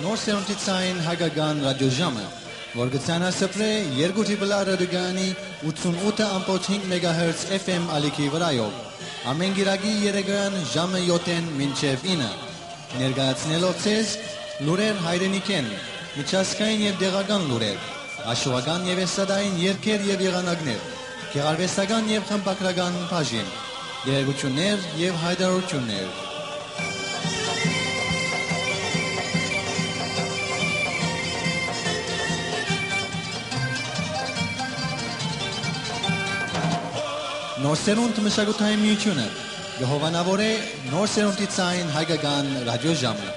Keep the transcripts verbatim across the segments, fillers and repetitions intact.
Նոր սերունդի ցային հայկական ռադիոժամը, որ կը ցանասփռէ երկու դիպլա ռադիոկայանի ութսունութ ըմբոց հինգ մեգահերց F M ալիքի վրայով, ամէն կիրակի երեկոյան ժամը յոթ մինչեւ ինը, ներկայացնելով ձեզ լուրեր հայրենիքէն, միջազգային եւ տեղական լուրեր, աշուական եւ էսթատային երգեր եւ եղանակներ, գեղարուեստական եւ խմբագրական բաժին, տեղեկութիւններ եւ յայտարարութիւններ։ Նոր սերունդ մշակութային միութիւնը կը հովանաւորէ նոր սերունդի ցային հայկական ռադիոժամը։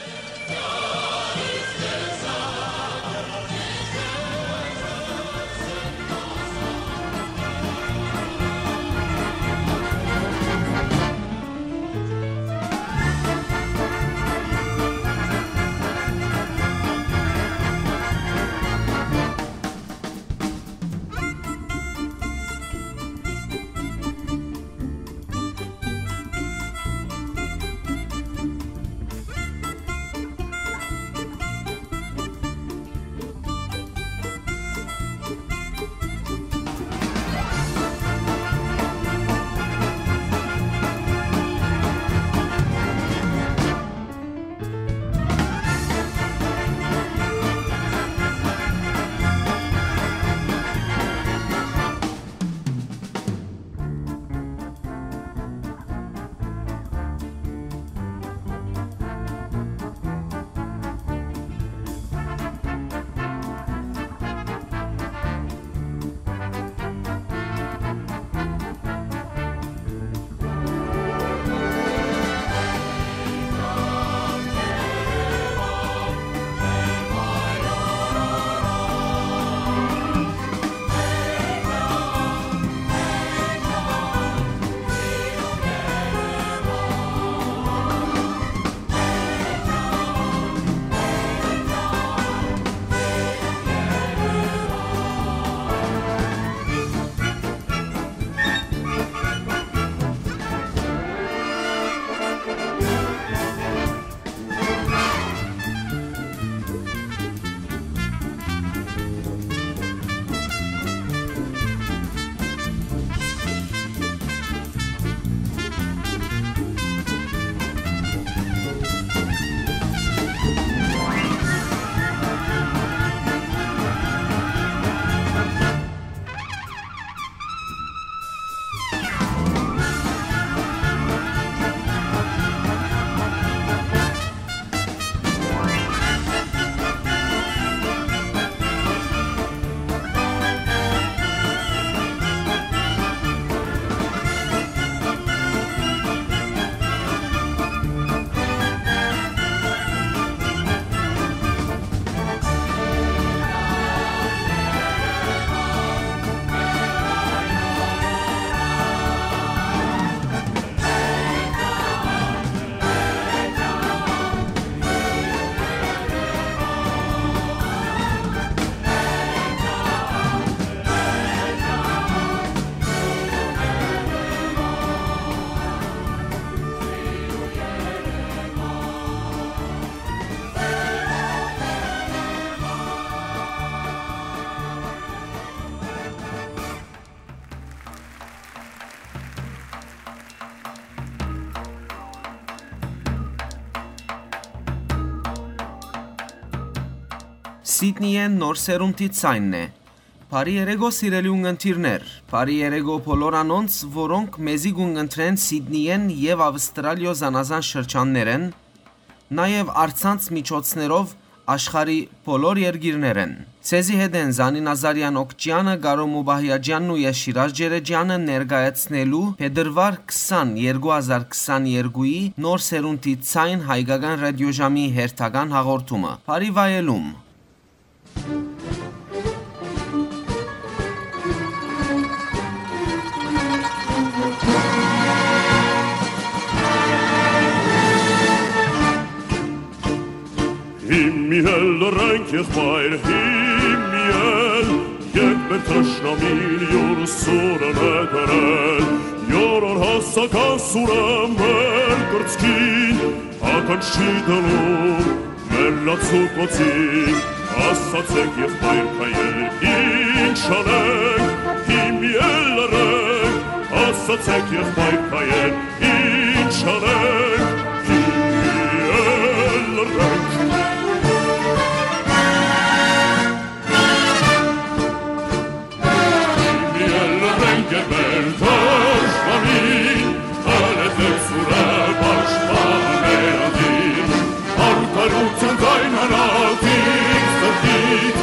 Սիդնիէն նոր սերունդի ցայնն է։ Բարի երեկո, սիրելի ունգընտիրներ։ Բարի երեկո բոլոր անոնց, որոնք մեզի կունգընտրեն Սիդնիէն եւ Ավստրալիոյ զանազան շրջաններէն, նաեւ առցանց միջոցներով աշխարհի բոլոր երկիրներէն։ Ձեզի հետ են Զանի Նազարեան Օքճեանը, Կարո Մուբահիաջեանն ու ես Շիրազ Ջերեջեանը ներկայացնելու փետրուար քսան, երկու հազար քսաներկուի նոր սերունդի ցայն հայկական ռադիոժամի հերթական հաղորդումը։ Բարի վայելում։ Հիմի էլ լռենք, եղբայր, հիմի էլ, երբ մեր թշնամին յուր սուրն է դրել, յորոր հասական սուրը մեր կրծքին ականջ չի դնում, Լացուկոցին, ասացեք եղբայր քայեր, ինչ անենք, հիմի էլ լռենք, ասացեք եղբայր քայեր, ինչ անենք, հիմի էլ լռենք։ Հիմի էլ լռենք, եղբայր թշնամին, հալեցեք սուրը պաշտպաններ անդին, արդարութեան ձայնանացին սրտից,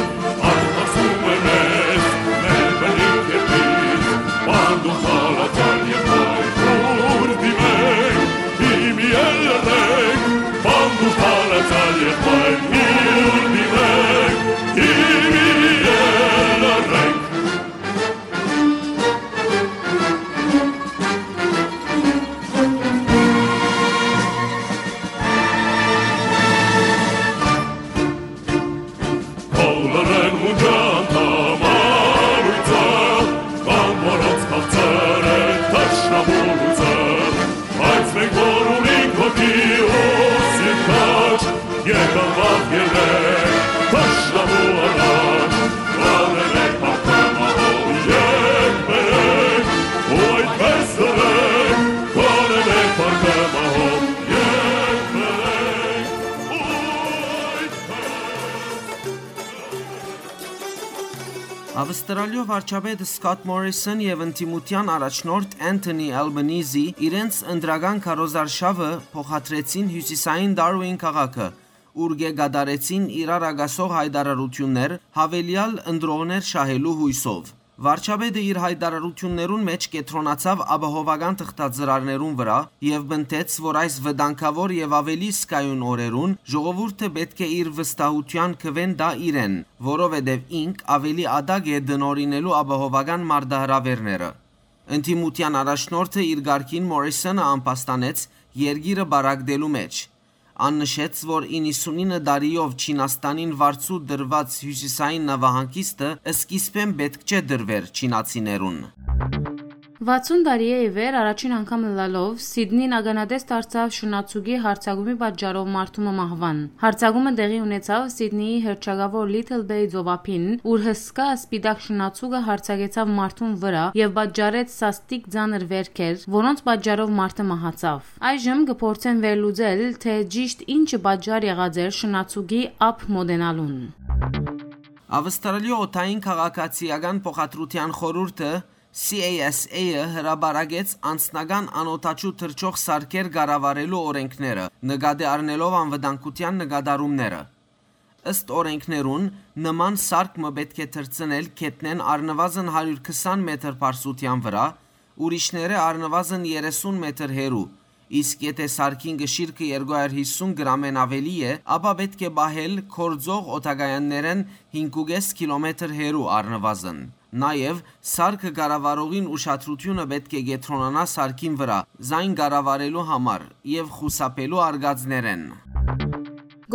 Արթնացնում է մեզ մեր բնիկ երկիր, պանդում թալացան եղբայր քուրդի մենք, հիմի էլ լռենք, պանդում թալացան եղբայր քուրդի մենք, հիմի էլ լռենք։ Բոլորն մունջան տամարույցը, կան որոնց քաղցր է թշնամու լույսը, բայց մենք որ ունենք հոգի ու սիրտ քաջ, եկան վաղ ելլենք թշնամու առաջ, կանենք փառքը մահով եկբերենք, ու այդպես լռենք, կանենք փառքը մահով եկբերենք, ու այդպես Ավստրալիոյ վարչապետ Սկոտ Մորիսոն եւ ընդդիմութեան առաջնորդ Էնթոնի Ալբանիզի իրենց ընտրական քարոզարշաւը փոխադրեցին հիւսիսային Դարուին քաղաքը, ուր կը կատարեցին իրար ակասող յայտարարութիւններ, յաւելեալ ընտրողներ շահելու յոյսով։ Վարչապետը իր յայտարարութիւններուն մէջ կեդրոնացաւ ապահովական թղթածրարներուն վրայ եւ պնդեց, որ այս վտանգաւոր եւ աւելի զգայուն օրերուն ժողովուրդը պէտք է իր վստահութեան քուէն տայ իրեն, որովհետեւ ինք աւելի ատակ է տնօրինելու ապահովական մարտահրաւէրները։ Ընդդիմութեան առաջնորդը իր կարգին Մորիսոնը ամբաստանեց երկիրը պառակտելու մէջ։ Ան նշեց, որ իննսունինը տարիով Չինաստանին վարձու տրուած հիւսիսային նավահանգիստը սկիզբէն պէտք չէ տրուէր չինացիներուն։ Վաթսուն տարի է ի վեր առաջին անգամ ըլլալով Սիդնին ականատես դարձաւ շնացուկի յարձակումի պատճառով մարդու մը մահուան։ Յարձակումը տեղի ունեցաւ Սիդնիի հռչակաւոր Little Bay ծովափին, ուր հսկայ սպիտակ շնացուկը յարձակեցաւ մարդուն վրայ եւ պատճառեց սաստիկ ծանր վերքեր, որոնց պատճառով մարդը մահացաւ։ Այժմ կը փորձեն վերլուծել, թէ ճիշդ ինչը պատճառ եղած էր շնացուկի ափ մօտենալուն։ Ավստրալիոյ օդային քաղաքացիական փոխադրութեան խորհուրդը, C A S A-ը, հրապարակեց անձնական անօդաչու թռչող սարքեր կառավարելու օրէնքները, նկատի առնելով անվտանգութեան նկատառումները։ Ըստ օրէնքներուն, նման սարք մը պէտք է թռցնել գետնէն առնուազն հարիւր քսան մետր բարձրութեան վրայ, ուրիշները առնուազն երեսուն մետր հեռու, իսկ եթէ սարքին կշիռքը երկու հարիւր յիսուն գրամէն աւելի է, ապա պէտք է պահել գործող օդակայաններէն հինգ ու կէս կիլոմետր հեռու առնուազն։ Նաեւ սարքը կառավարողին ուշադրութիւնը պէտք է կեդրոնանայ սարքին վրայ, զայն կառավարելու համար եւ խուսափելու արկածներէն։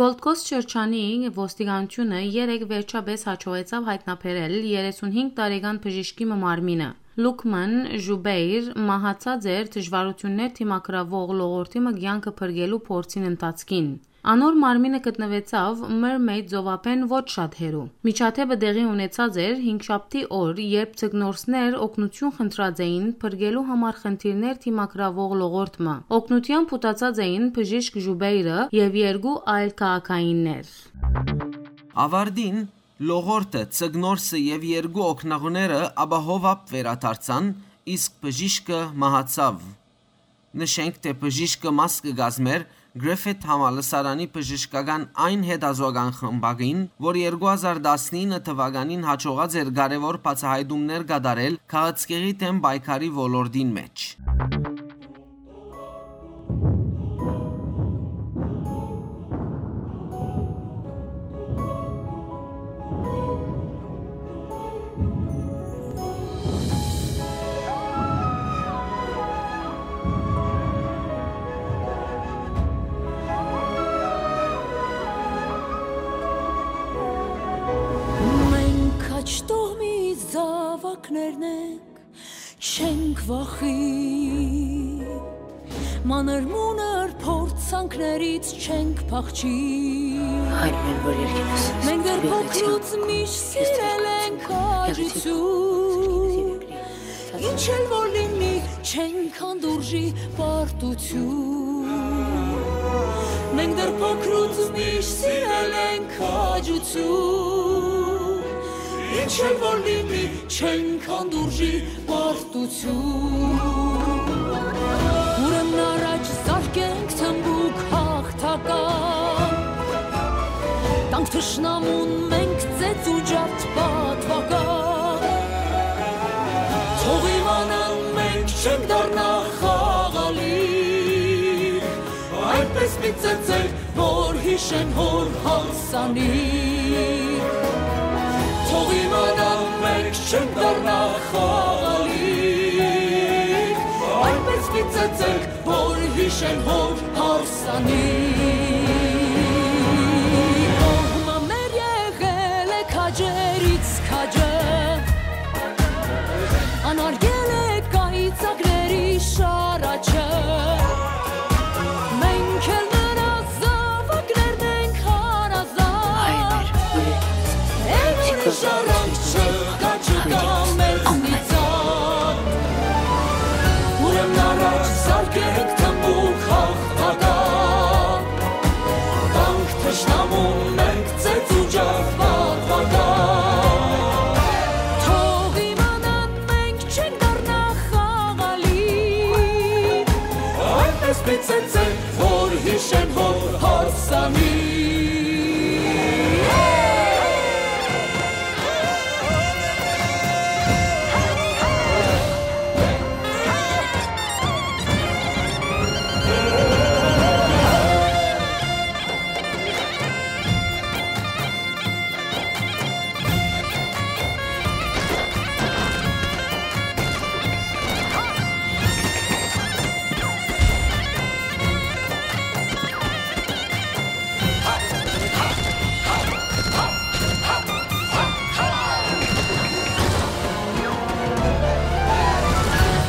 Gold Coast շրջանի ոստիկանութիւնը երեկ վերջապէս յաջողեցաւ յայտնաբերել երեսունհինգ տարեկան բժիշկի մը մարմինը։ Լուկման Ժուբեյր մահացած էր դժվարութիւններ դիմագրաւող լողորտի մը կեանքը փրկելու փորձին ընթացքին։ Անոր մարմինը գտնուեցաւ Մըրմեյդ ծովափէն ոչ շատ հեռու։ Միջադէպը տեղի ունեցած էր հինգշաբթի օր, երբ ձկնորսներ օգնութիւն խնդրած էին փրկելու համար խնդիրներ դիմագրաւող լողորտ մը։ Օգնութեան փութացած էին բժիշկ Ժուբեյրը եւ երկու այլ քաղաքայիններ։ Աւարտին, լողորտը, ձկնորսը եւ երկու օգնողները ապահովապ վերադարձան, իսկ բժիշկը մահացաւ։ Նշենք, թէ բժիշկը մաս կը կազմէր Griffith համալսարանի բժշկական այն հետազօական խմբակին, որ երկու հազար տասնինը թուականին յաջողած էր կարեւոր բացահայտումներ կատարել քաղցկեղի դէմ պայքարի ոլորտին մէջ։ Մենք աջ տոհմի զաւակներն ենք, չենք վախի։ Մանր-մունր փորձանքներից չենք փախչի։ Հայր մեր, որ երկինս ես, Մենք դեռ փոխրուց միշտ սիրել ենք քաջություն։ Ինչ էլ որ լինի, չենք հանդուրժի պարտություն։ Մենք դեռ փոխրուց միշտ սիրել ենք քաջություն։ Ինչ էլ որ լինի, չենք հանդուրժի պարտություն։ Ուրեմն առաջ զարկենք թմբուկ հաղթական, տանք թշնամուն մենք ծեծ ու ջարդ պատվական։ Թող իմանան մենք չենք դառնա խաղալի, այնպես մի ծեծենք, որ յիշեն հոր հարսանիք։ Թող իմանան մենք չենք դառնա խաղալի, այնպես մի ծեծենք, որ յիշեն հոր հարսանիք։ Կողմը մեր եղել է քաջերից քաջը, անարգել է կայծակների շարաչը։ Մենք էլ նրա զաւակներն ենք հարազատ։ Այն ուրիշ առանց չկա, չկա մեզնից ատ։ Ուրեմն առաջ զարկենք թմբուկ հաղթական, տանք թշնամուն մենք ծեծ ու ջարդ պատվական։ Թող իմանան մենք չենք դառնա խաղալի, այնպես մի ծեծենք, որ յիշեն հոր հարսանիք։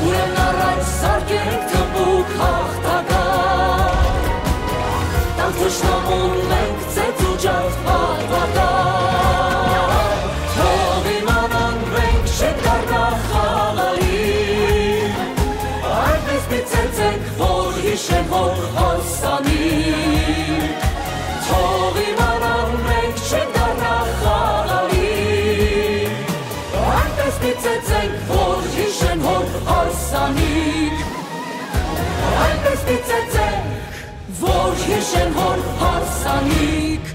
Ուրեմն առաջ զարկենք թմբուկ հաղթական, տանք թշնամուն մենք ծեծ ու ջարդ պատվական։ Թող իմանան մենք չենք դառնա խաղալի, այնպես մի ծեծենք, որ յիշեն հոր հարսանիք։ Թող իմանան մենք չենք դառնա խաղալի, այնպես մի ծեծենք, որ յիշեն հոր հարսանիք։ Այնպես մի ծեծենք, որ յիշեն հոր հարսանիք։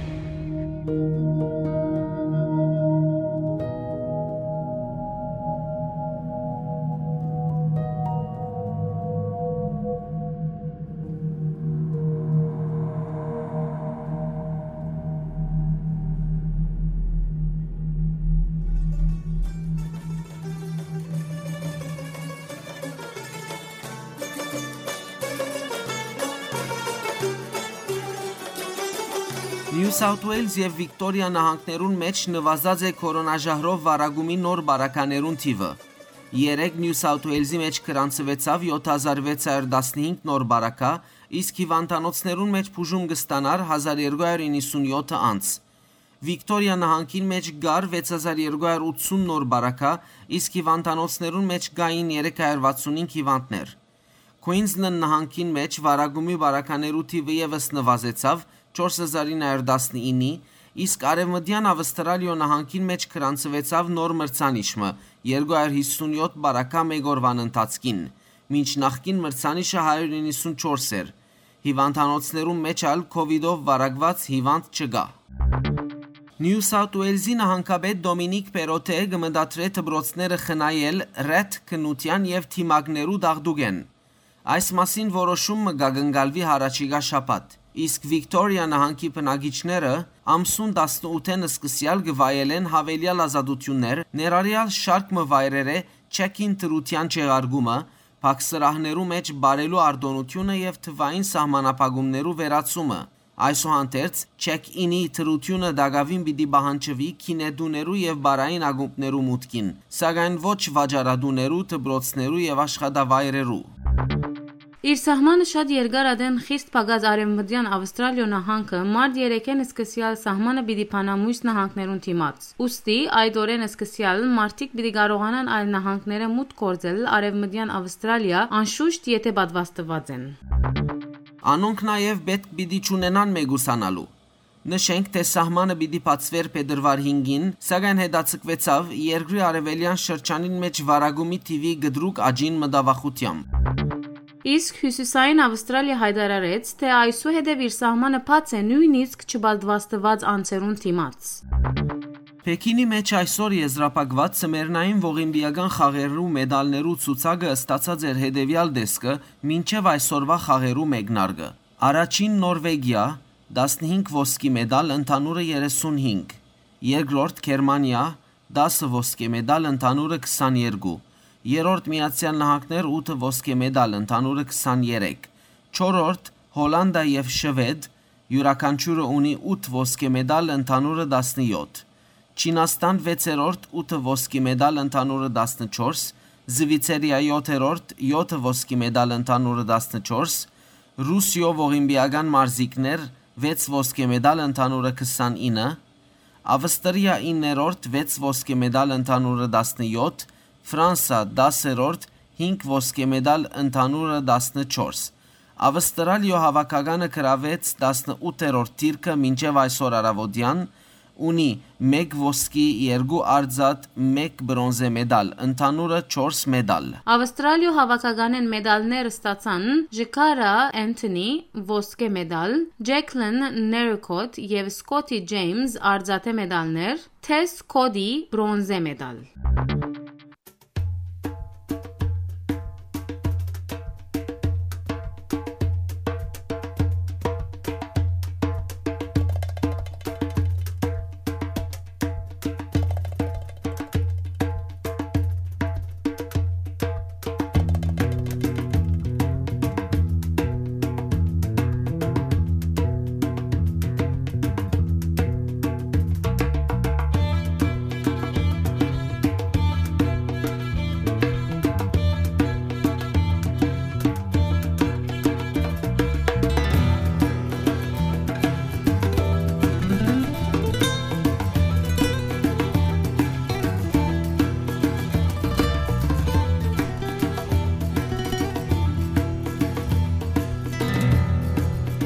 Նիու Սաութ Ուէյլզ եւ Վիկտորիա նահանգներուն մէջ նուազած է քորոնաժահրով վարակումի նոր բարականերուն թիւը։ Երեկ Նիու Սաութ Ուէյլզի մէջ գրանցուեցաւ յոթ հազար վեց հարիւր տասնհինգ նոր բարակայ, իսկ հիւանդանոցներուն մէջ բուժում կը ստանար հազար երկու հարիւր իննսուն յոթ անձ։ Վիկտորիա նահանգին մէջ կար վեց հազար երկու հարիւր ութսուն նոր բարակայ, իսկ հիւանդանոցներուն մէջ կային երեք հարիւր վաթսուն հինգ հիւանդներ։ Քուինզլենդ նահանգին մէջ վարակումի բարականերու թիւը եւս նուազեցաւ չորս հազար ինը հարիւր տասնիննի, իսկ Արեւմտեան Աւստրալիոյ նահանգին մէջ գրանցուեցաւ նոր մրցանիշ մը երկու հարիւր յիսուն յոթ բարակայ մէկ օրուան ընթացքին, մինչ նախկին մրցանիշը հարիւր իննսուն չորս էր։ Հիւանդանոցներուն մէջ ալ քովիդով վարակուած հիւանդ չկայ։ Նիու Սաութ Ուէյլզի նահանգապետ Դոմինիք Պերոթէ կը մտադրէ դպրոցները խնայել ռեթ քննութեան եւ դիմակներու դաղդուկէն։ Այս մասին որոշում մը կը կատարուի յառաջիկայ շաբաթ, իսկ Վիկտորիա նահանգի բնակիչները ամսուն տասնութ-ին սկսեալ կը վայելեն յաւելեալ ազատութիւններ, ներառեալ շարք մը վայրերէ չեքին դրութեան չեղարկումը, փակ սրահներու մէջ պարելու արտօնութիւնը եւ թուային սահմանափակումներու վերացումը։ Այսուհանդերձ, չեքինի դրութիւնը տակաւին պիտի պահանջուի գինետուներու եւ պարային ակումբներու մուտքին, սակայն ոչ վաճառատուներու, դպրոցներու եւ աշխատավայրերու։ Իր սահմանը շատ երկար ատեն խիստ փակած Արեւմտեան Աւստրալիոյ նահանգը մարտ երեքէն սկսեալ սահմանը պիտի բանայ միւս նահանգներուն դիմաց։ Ուստի այդ օրէն սկսեալ մարդիկ պիտի կարողանան այլ նահանգներէ մուտք գործել Արեւմտեան Աւստրալիա, անշուշտ եթէ պատուաստուած են։ Անոնք նաեւ պէտք պիտի չունենան մեկուսանալու։ Նշենք, թէ սահմանը պիտի բացուէր փետրուար հինգին, սակայն հետաձգուեցաւ երկրի արեւելեան շրջանին մէջ վարակումի թիւի կտրուկ աճին մտավախութեամբ։ Իսկ Հիւսիսային Աւստրալիա յայտարարեց, թէ այսուհետեւ իր սահմանը բաց է նոյնիսկ չպատուաստուած անձերուն դիմաց։ Պեքինի մէջ այսօր եզրափակուած ձմեռնային ողիմպիական խաղերու մեդալներու ցուցակը ստացած էր հետեւեալ տեսքը մինչեւ այսօրուայ խաղերու մեկնարկը։ Առաջին Նորվեգիա, տասնհինգ ոսկի մեդալ, ընդհանուրը երեսունհինգ, երկրորդ Գերմանիա, տասը ոսկե մեդալ, ընդհանուրը քսաներկու, երրորդ Միացեալ Նահանգներ, ութը ոսկե մեդալ, ընդհանուրը քսաներեք, չորրորդ Հոլանտա եւ Շուեդ, իւրաքանչիւրը ունի ութ ոսկե մեդալ, ընդհանուրը տասնեօթ, Չինաստան վեցերորդ, ութը ոսկի մեդալ, ընդհանուրը տասնչորս, Զուիցերիա յոթերորդ, յոթը ոսկի մեդալ, ընդհանուրը տասնչորս, Ռուսիոյ ողիմպիական մարզիկներ, վեց ոսկե մեդալ, ընդհանուրը քսանինը, Աւստրիա իններորդ, վեց ոսկե մեդալ, ընդհանուրը տասնեօթ, Ֆրանսա դասերորդ, հինգ ոսկե մեդալ, ընդհանուրը տասնչորս։ Աւստրալիոյ հաւաքականը գրաւեց տասնութերորդ դիրքը մինչեւ այսօր առաւօտեան, ունի մէկ ոսկի, երկու արծաթ, մէկ բրոնզե մեդալ, ընդհանուրը չորս մեդալ։ Աւստրալիոյ հաւաքականէն մեդալներ ստացան Ժկարա Էնթոնի, ոսկե մեդալ, Ջեքլին Ներկոտ եւ Սկոթի Ջեյմս, արծաթէ մեդալներ, Թես Քոդի, բրոնզե մեդալ։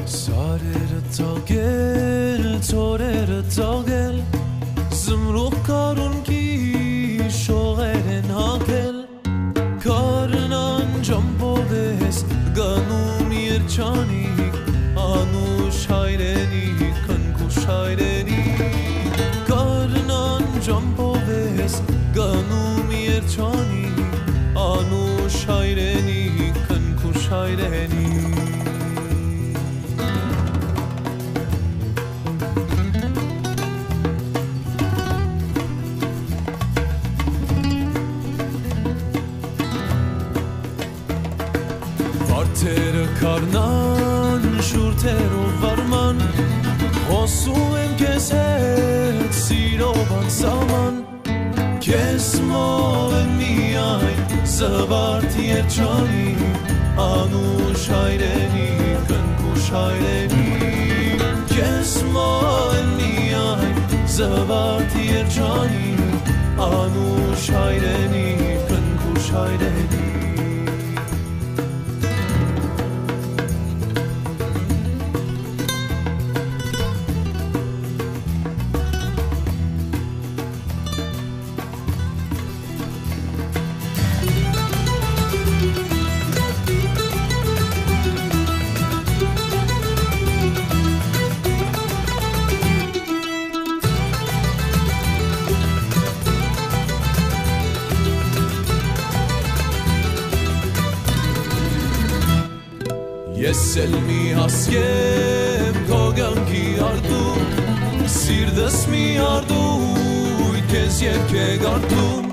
Սարերը ծաղկել, ծորերը ծաղկել, զմրուխտ կարունկի շողերեն հագել, գարնան ճամբով ես գնում երջանիկ, անուշ հայրենիք, քնքուշ հայրենիք, գարնան ճամբով ես գնում երջանիկ, անուշ հայրենիք, քնքուշ հայրենիք։ Վարդերը քարնան, շուրթերով վարման, խօսում եմ քեզ հետ սիրով անսահման։ Քեզ մոլ եմ միայն, զվարթ երջանիկ, անուշ հայրենիք, քնքուշ հայրենիք։ Քեզ մոլ եմ միայն, զվարթ երջանիկ, անուշ հայրենիք, քնքուշ հայրենիք։ Ես էլ մի հասկեմ քո կյանքի արտում, սիրտս մի արտույտ քեզ երգ է կարդում,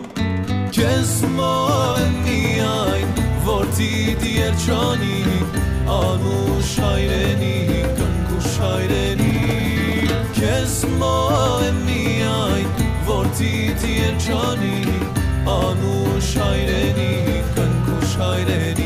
քեզ մոլ եմ միայն, որդիդ երջանիկ, անուշ հայրենիք, քնքուշ հայրենիք, քեզ մոլ եմ միայն, որդիդ երջանիկ, անուշ հայրենիք, քնքուշ հայրենիք։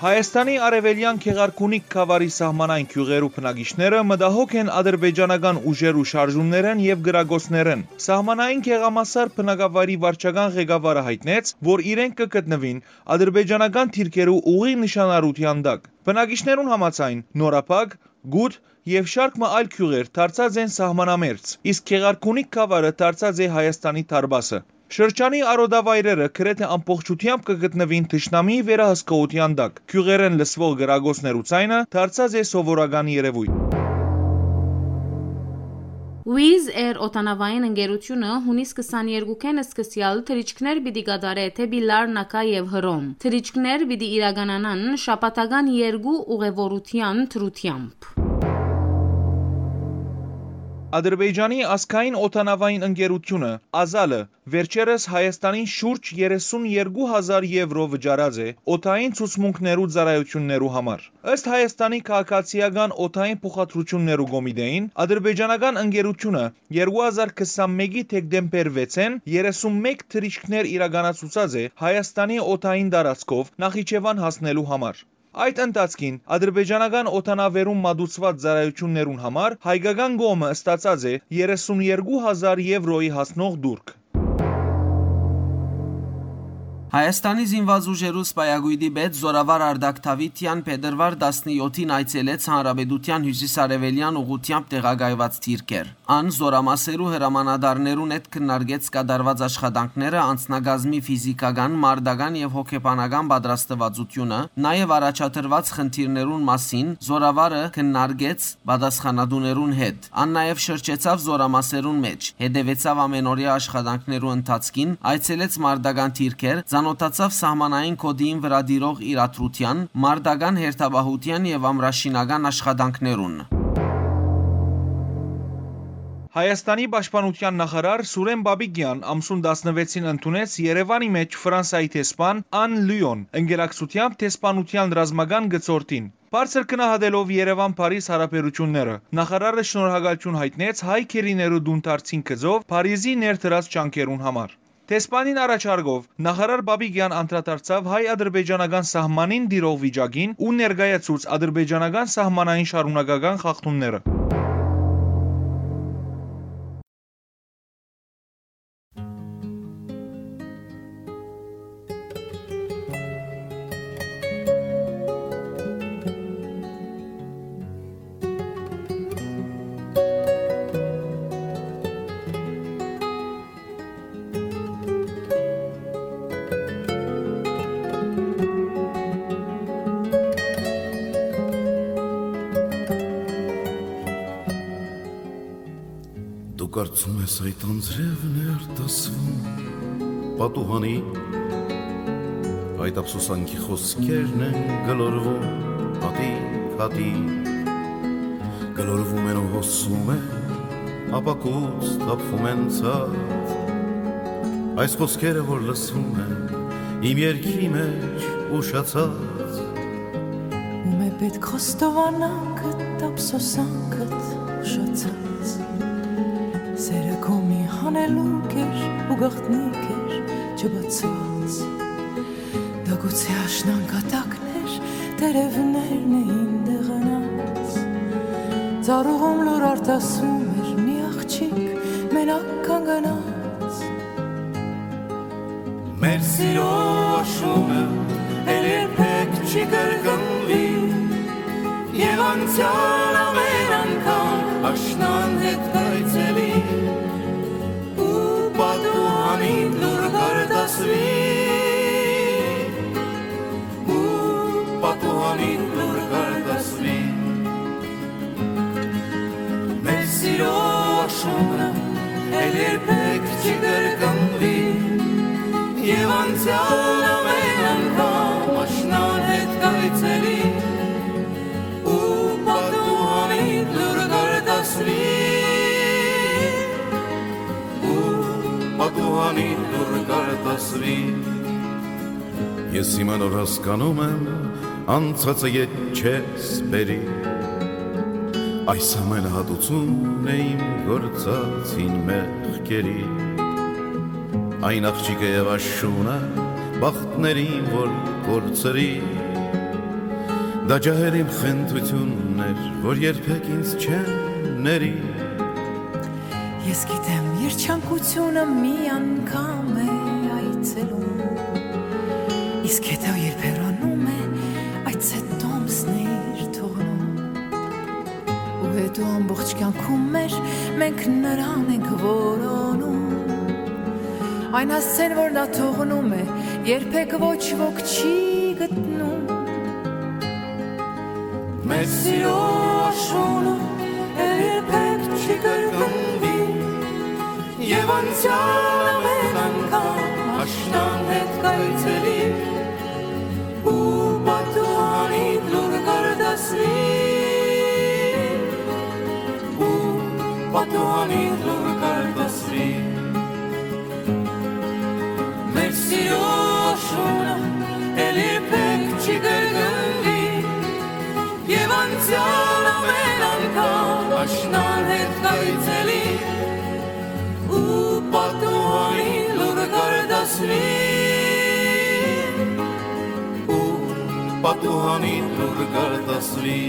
Հայաստանի արեւելեան Գեղարքունիք գաւառի սահմանային գիւղերու բնակիչները մտահոգ են ադրբեջանական ուժերու շարժումներէն եւ կրակոցներէն։ Սահմանային գեղամասար բնակավայրի վարչական ղեկավարը յայտնեց, որ իրենք կը գտնուին ադրբեջանական դիրքերու ուղիղ նշանառութեան տակ։ Բնակիչներուն համաձայն՝ Նորապակ, Գութ եւ շարք մը այլ գիւղեր դարձած են սահմանամերձ, իսկ Գեղարքունիք գաւառը դարձած է Հայաստանի դարպասը։ Շրջանի արոտավայրերը գրեթէ ամբողջութեամբ կը գտնուին թշնամիի վերահսկողութեան տակ։ Գիւղերէն լսուող կրակոցներու ձայնը դարձած է սովորական երեւոյթ։ Wizz Air օդանավային ընկերութիւնը յունիս քսաներկուքէն սկսեալ թռիչքներ պիտի կատարէ դէպի Լարնակա եւ Հռոմ։ Թռիչքներ պիտի իրականանան շաբաթական երկու ուղեւորութեան դրությամբ։ Ադրբեջանի ազգային օդանավային ընկերութիւնը՝ Ազալը, վերջերս Հայաստանին շուրջ երեսուն երկու հազար եվրո վճարած է օդային ցուցմունքներու ծառայութիւններու համար։ Ըստ Հայաստանի քաղաքացիական օդային փոխադրութիւններու կոմիտէին, ադրբեջանական ընկերութիւնը երկու հազար քսանմէկի դեկտեմբեր վեցին երեսունմեկ թռիչքներ իրականացուցած է Հայաստանի օդային տարածքով Նախիջեւան հասնելու համար։ Այդ ընթացքին ադրբեջանական օդանավերուն մատուցուած ծառայութիւններուն համար հայկական կողմը ստացած է երեսուն երկու հազար եվրոյի հասնող տուրք։ Հայաստանի զինված ուժերու սպայակոյտի պետ զօրավար Արտակ Դավիթեան փետրուար տասնեթին այցելեց հանրապետութեան հիւսիսարեւելեան ուղղութեամբ տեղակայուած դիրքեր։ Ան զօրամասերու հրամանատարներուն հետ քննարկեց կատարուած աշխատանքները, անձնակազմի ֆիզիքական, մարտական եւ հոգեբանական պատրաստուածութիւնը, նաեւ առաջադրուած խնդիրներուն մասին զօրավարը քննարկեց պատասխանատուներուն հետ։ Ան նաեւ շրջեցաւ զօրամասերուն մէջ, հետեւեցաւ ամենօրեայ աշխատանքներու ընթացքին, այցելեց մարտական դիրքեր, ծանօթացաւ սահմանային գօտիին վրայ տիրող իրադրութեան, մարտական հերթապահութեան եւ ամրաշինական աշխատանքներուն։ Հայաստանի պաշտպանութեան նախարար Սուրեն Պապիկեան ամսուն տասնվեցին ընդունեց Երեւանի մէջ Ֆրանսայի դեսպան Ան Լիոն, ընկերակցութեամբ դեսպանութեան ռազմական գծորդին։ Բարձր գնահատելով Երեւան-Փարիզ յարաբերութիւնները, նախարարը շնորհակալութիւն յայտնեց հայ գերիներու տունդարձին գծով Փարիզի ներդրած ջանքերուն համար։ Դեսպանին առաջարկով նախարար Պապիկեան անդրադարձաւ հայ-ադրբեջանական սահմանին տիրող վիճակին ու ներկայացուց ադրբեջանական սահմանային շարունակական խախտումները։ Դու կարծում ես այդ անձրևն է արտասվում պատուհանի, այդ ափսոսանքի խոսքերն են գլորվում հատիկ-հատիկ, գլորվում են ու հոսում են, ապակուց թափվում են ցած։ Այս խոսքերը, որ լսվում են իմ երգի մեջ ուշացած, ում է պետք խոստովանանքդ, ափսոսանքդ ուշացած։ Սերը քո մի հանելուկ էր ու գաղտնիք էր չբացված։ Դա գուցե աշնան կատակն էր, տերևներն էին դեղանած։ Ծառուղում լուր արտասում էր մի աղջիկ մենակ կանգնած։ Մեր սիրո աշունը էլ երբեք չի կրկնվի, եւ անցյալ ամեն անգամ աշնան հետ կայցելի, ու պատուհանին լուր կարտասվի, ու պատուհանին լուր կարտասվի։ Մեր սիրո աշունը էլ երբեք չի կրկնվի, եւ անցյալ ամեն անգամ աշնան հետ կայցելի, ու պատուհանին լուր կարտասվի, ու պատուհանին լուր կարտասվի։ Ես հիմա նոր հասկանում եմ, անցածը ետ չես բերի։ Այս ամենը հատուցում է իմ գործած հին մեղքերի։ Այն աղջիկը եւ աշունը, բախտներին որ կորցրի, Տաճահեր իմ խնդրութիւնն էր, որ երբեք ինձ չեն ների։ Ես գիտեմ, երջանկութիւնը մի անգամ է այցելում, իսկ հետո երբ հեռանում է, այդ ցետ տոմսն է իր թողնում։ Ու հետո ամբողջ կյանքում մեր մենք նրան ենք որոնում։ Այն հասցեն, որ նա թողնում է, երբեք ոչ ոք չի գտնում։ Մեր սիրո աշունը երբեք չի կրկնվի, եւ անցեալ ամեն անգամ աշնան հետ կայցելի, ու պատուհանիդ լուր կարտասվի, ու պատուհանիդ լուր կարտասվի։ Մեր սիրո աշունը էլ երբեք չի կրկնվի, եւ անցեալ ամեն անգամ աշնան հետ կայցելի, ու պատուհանին լուր կարտասվի, ու պատուհանին լուր կարտասվի։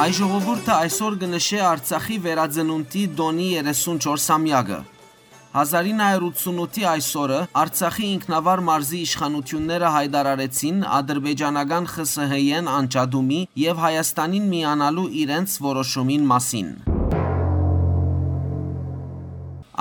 Հայ ժողովուրդը այսօր կը նշէ Արցախի վերածնունդի տօնի երեսուն չորս ամեակը։ Հազար ինը հարիւր ութսունութի այսօրը Արցախի ինքնավար մարզի իշխանութիւնները յայտարարեցին ադրբեջանական Խ Ս Հ-ին անջատումի եւ Հայաստանին միանալու իրենց որոշումին մասին։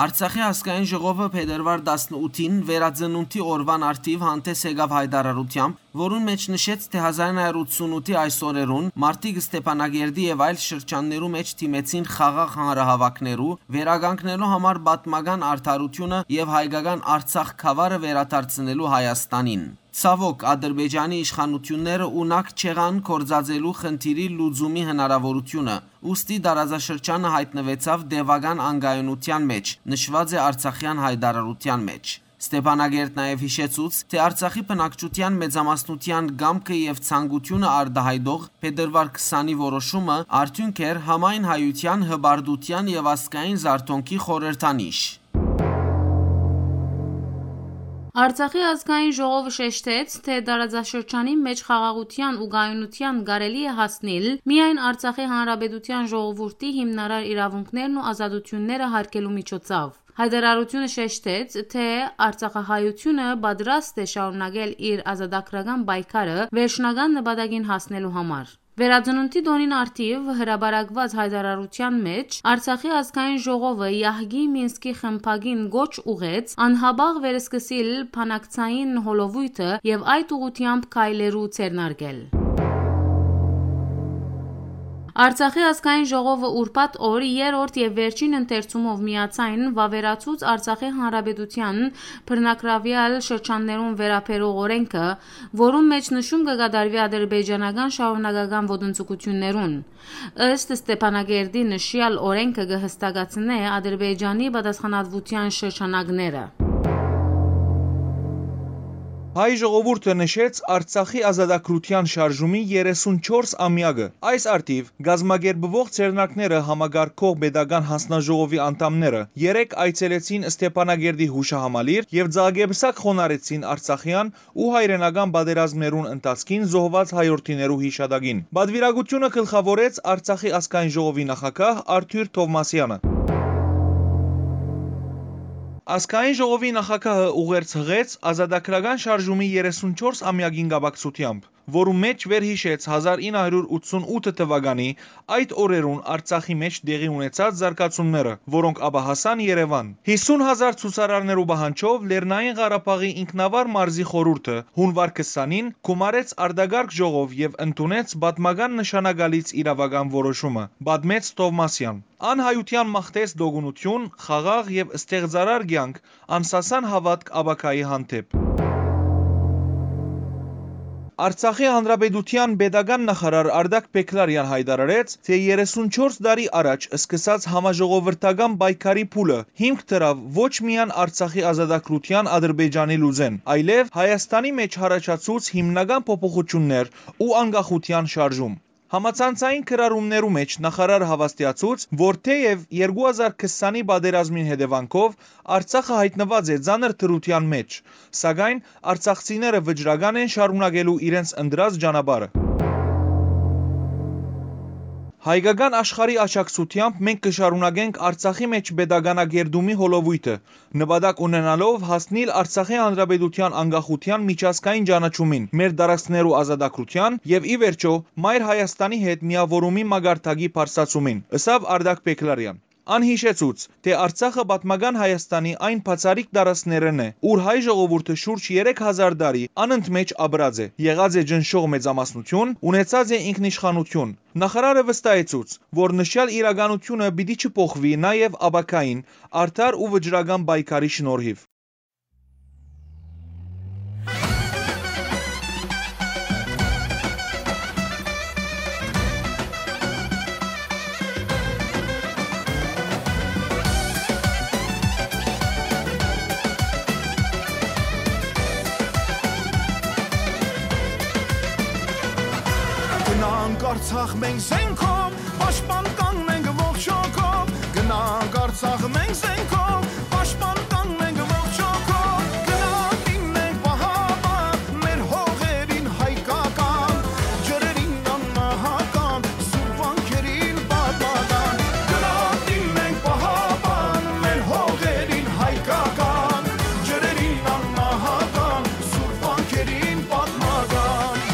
Արցախի ազգային ժողովը փետրուար տասնութին վերածնունդի օրուան առթիւ հանդէս եկաւ յայտարարութեամբ, որուն մէջ նշեց, թէ հազար ինը հարիւր ութսունութի այս օրերուն մարդիկ Ստեփանագերդի եւ այլ շրջաններու մէջ դիմեցին խաղաղ հանրահաւաքներու, վերականգնելու համար պատմական արդարութիւնը եւ հայկական Արցախ գաւառը վերադարձնելու Հայաստանին։ Ցաւօք, Ադրբեջանի իշխանութիւնները ունակ չեղան գործածելու խնդիրի լուծումի հնարաւորութիւնը, ուստի տարածաշրջանը յայտնուեցաւ տեւական անկայունութեան մէջ, նշուած է Արցախեան յայտարարութեան մէջ։ Ստեփանագերտ նաեւ յիշեցուց, թէ Արցախի բնակչութեան մեծամասնութեան կամքը եւ ցանկութիւնը արտայայտող փետրուար քսանի որոշումը արդիւնք էր համայն հայութեան, հպարտութեան եւ ազգային զարթոնքի խորհրդանիշ։ Արցախի ազգային ժողովը շեշտեց, թէ տարածաշրջանի մէջ խաղաղութեան ու կայունութեան կարելի է հասնիլ միայն Արցախի Հանրապետութեան ժողովուրդի հիմնարար իրաւունքներն ու ազատութիւնները յարգելու միջոցով։ Յայտարարութիւնը շեշտեց, թէ արցախահայութիւնը պատրաստ է շարունակել իր ազատագրական պայքարը վերջնական նպատակին հասնելու համար։ Վերածնունդի տօնին առթիւ հրապարակուած յայտարարութեան մէջ Արցախի ազգային ժողովը Եահկի Մինսկի խմբակին կոչ ուղղեց անհապաղ վերսկսիլ բանակցային հոլովոյթը եւ այդ ուղղութեամբ քայլերու ձեռնարկել։ Արցախի ազգային ժողովը ուրբաթ օր երրորդ եւ վերջին ընթերցումով միաձայն վաւերացուց Արցախի Հանրապետութեան բռնակրաւեալ շրջաններուն վերաբերող օրէնքը, որուն մէջ նշում կը կատարուի ադրբեջանական շարունակական ոտնձգութիւններուն։ Ըստ Ստեփանագերդի, նշեալ օրէնքը կը հստակացնէ Ադրբեջանի պատասխանատվութեան շրջանակները։ Հայ ժողովուրդը նշեց Արցախի ազատագրութեան շարժումի երեսուն չորս ամեակը։ Այս առթիւ կազմակերպուող ձեռնարկները համակարգող պետական հանձնաժողովի անդամները երեկ այցելեցին Ստեփանագերդի յուշահամալիր եւ ձագեպսակ խոնարհեցին արցախեան ու հայրենական պատերազմներուն ընթացքին զոհուած հայորդիներու յիշատակին։ Պատուիրակութիւնը գլխաւորեց Արցախի ազգային ժողովի նախագահ Արթուր Թովմասեանը։ Ազգային ժողովի նախագահը ուղերձ յղեց ազատագրական շարժումի երեսուն չորս ամեակին կապակցութեամբ։ որուն մէջ վերհիշեց հազար ինը հարիւր ութսուն ութ թուականի այդ օրերուն Արցախի մէջ տեղի ունեցած զարգացումները, որոնք ապա հասան Երեւան։ Յիսուն հազար ցուցարարներու պահանջով Լեռնային Ղարաբաղի ինքնավար մարզի խորհուրդը հունուար քսանին գումարեց արտակարգ ժողով եւ ընդունեց պատմական նշանակալից իրավական որոշումը, պատմեց Թովմասեան։ Ան հայութեան մաղթեց տոկունութիւն, խաղաղ եւ ստեղծարար կեանք, անսասան հաւատք ապագայի հանդէպ։ Արցախի Հանրապետութեան պետական նախարար Արտակ Բեգլարեան յայտարարեց, թէ երեսունչորս տարի առաջ սկսած համաժողովրդական պայքարի փուլը հիմք դրաւ ոչ միայն Արցախի ազատագրութեան Ադրբեջանի լուծեն, այլեւ Հայաստանի մէջ յառաջացուց հիմնական փոփոխութիւններ ու անկախութեան շարժում։ Համացանցային գրառումներու մէջ նախարար հաւաստիացուց, որ թէեւ երկու հազար քսանի պատերազմին հետեւանքով Արցախը յայտնուած է ծանր դրութեան մէջ, սակայն արցախցիները վճռական են շարունակելու իրենց ընտրած ճանապարհը։ Հայկական աշխարհի աջակցութեամբ մենք կը շարունակենք Արցախի մէջ պետականագերտումի հոլովոյթը, նպատակ ունենալով հասնիլ Արցախի Հանրապետութեան անկախութեան միջազգային ճանաչումին, մեր տարածքներու ազատագրութեան եւ, ի վերջոյ, Մայր Հայաստանի հետ միաւորումի մակարդակի բարձրացումին, ըսաւ Արտակ Բեգլարեան։ Ան յիշեցուց, թէ Արցախը պատմական Հայաստանի այն բացառիկ տարածքներէն է, ուր հայ ժողովուրդը շուրջ երեք հազար տարի անընդմէջ ապրած է, եղած է ճնշող մեծամասնութիւն, ունեցած է ինքնիշխանութիւն։ Նախարարը վստահեցուց, որ նշեալ իրականութիւնը պիտի չփոխուի նաեւ ապագային արդար ու վճռական պայքարի շնորհիւ։ Գնանք Արցախ մենք զենքով, պաշտպան կանք մենք ողջ հոգով։ Գնանք Արցախ մենք զենքով, պաշտպան կանք մենք ողջ հոգով։ Գնանք լինենք պահապան, մեր հողերին հայկական, ջրերին անմահական, սուր վանքերին պատմական։ Գնանք լինենք պահապան, մեր հողերին հայկական, ջրերին անմահական, սուր վանքերին պատմական։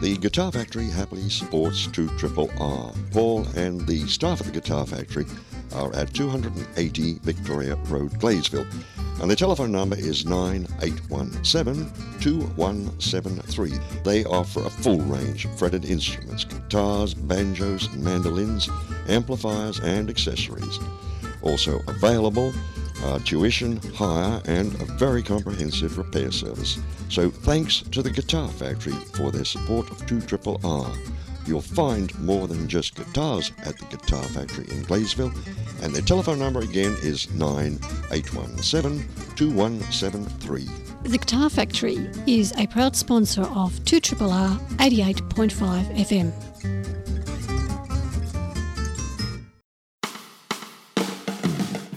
The Guitar Factory happily supports two triple R. Paul and the staff at the Guitar Factory are at two hundred and eighty Victoria Road, Gladesville. And their telephone number is nine eight one seven, two one seven three. They offer a full range of fretted instruments, guitars, banjos, mandolins, amplifiers, and accessories. Also available, uh, tuition, hire, and a very comprehensive repair service. So thanks to the Guitar Factory for their support of two triple R. You'll find more than just guitars at the Guitar Factory in Gladesville, and their telephone number again is nine eight one seven, two one seven three. The Guitar Factory is a proud sponsor of two triple R eighty-eight point five F M.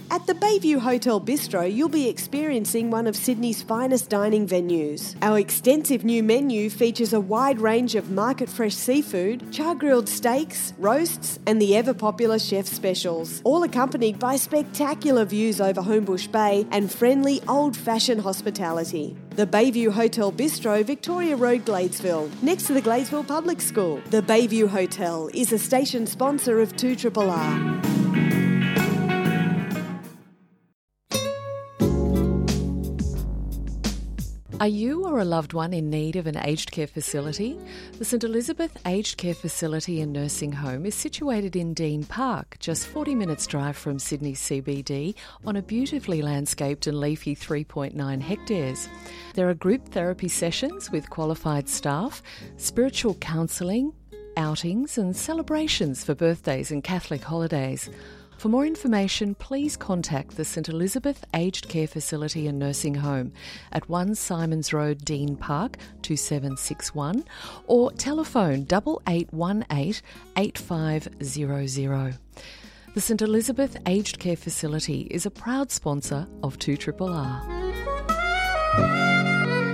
At the Bayview Hotel Bistro, you'll be experiencing one of Sydney's finest dining venues. Our extensive new menu features a wide range of market fresh seafood, char grilled steaks, roasts, and the ever popular chef specials, all accompanied by spectacular views over Homebush Bay and friendly old fashioned hospitality. The Bayview Hotel Bistro, Victoria Road, Gladesville, next to the Gladesville Public School. The Bayview Hotel is a station sponsor of two triple R. Are you or a loved one in need of an aged care facility? The St Elizabeth Aged Care Facility and Nursing Home is situated in Dean Park, just forty minutes' drive from Sydney C B D, on a beautifully landscaped and leafy three point nine hectares. There are group therapy sessions with qualified staff, spiritual counselling, outings and celebrations for birthdays and Catholic holidays. For more information, please contact the St Elizabeth Aged Care Facility and Nursing Home at one Symonds Road, Dean Park, two seven six one, or telephone double eight one eight, eight five zero zero. The St Elizabeth Aged Care Facility is a proud sponsor of two triple R.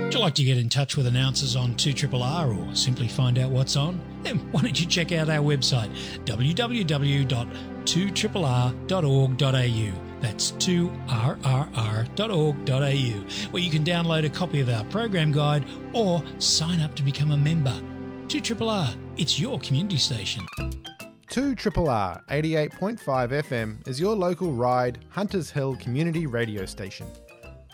Would you like to get in touch with announcers on two triple R or simply find out what's on? Then why don't you check out our website, w w w dot two triple r dot org dot a u. That's two r r r dot org dot a u, where you can download a copy of our program guide or sign up to become a member. Two triple R, it's your community station. Two triple R eighty-eight point five F M is your local Ryde, Hunters Hill community radio station.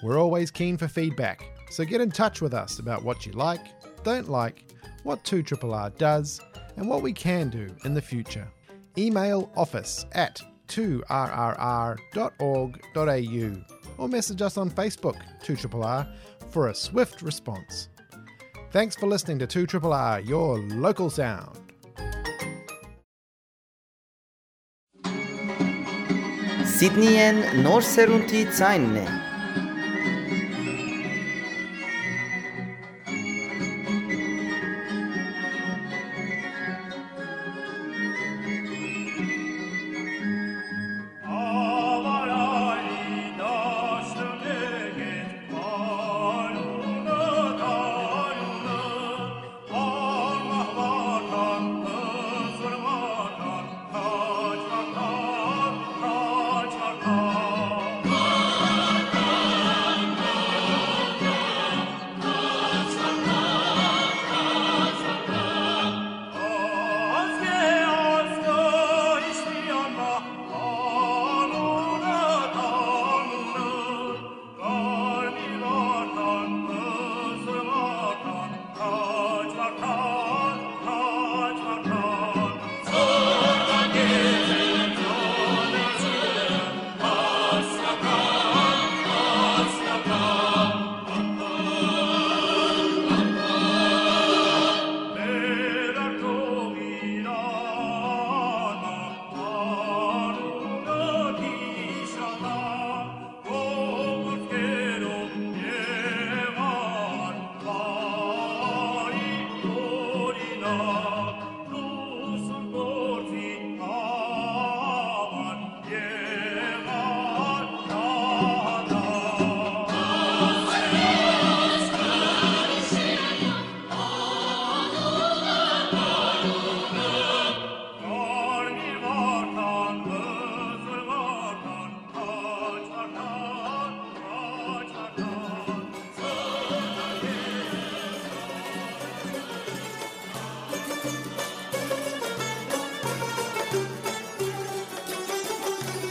We're always keen for feedback, so get in touch with us about what you like, don't like, what two triple R does, and what we can do in the future. Email office at two r r r dot org dot a u or message us on Facebook, two triple R, for a swift response. Thanks for listening to two triple R, your local sound. Սիդնիյէն նոր սերունդի ձայնն է։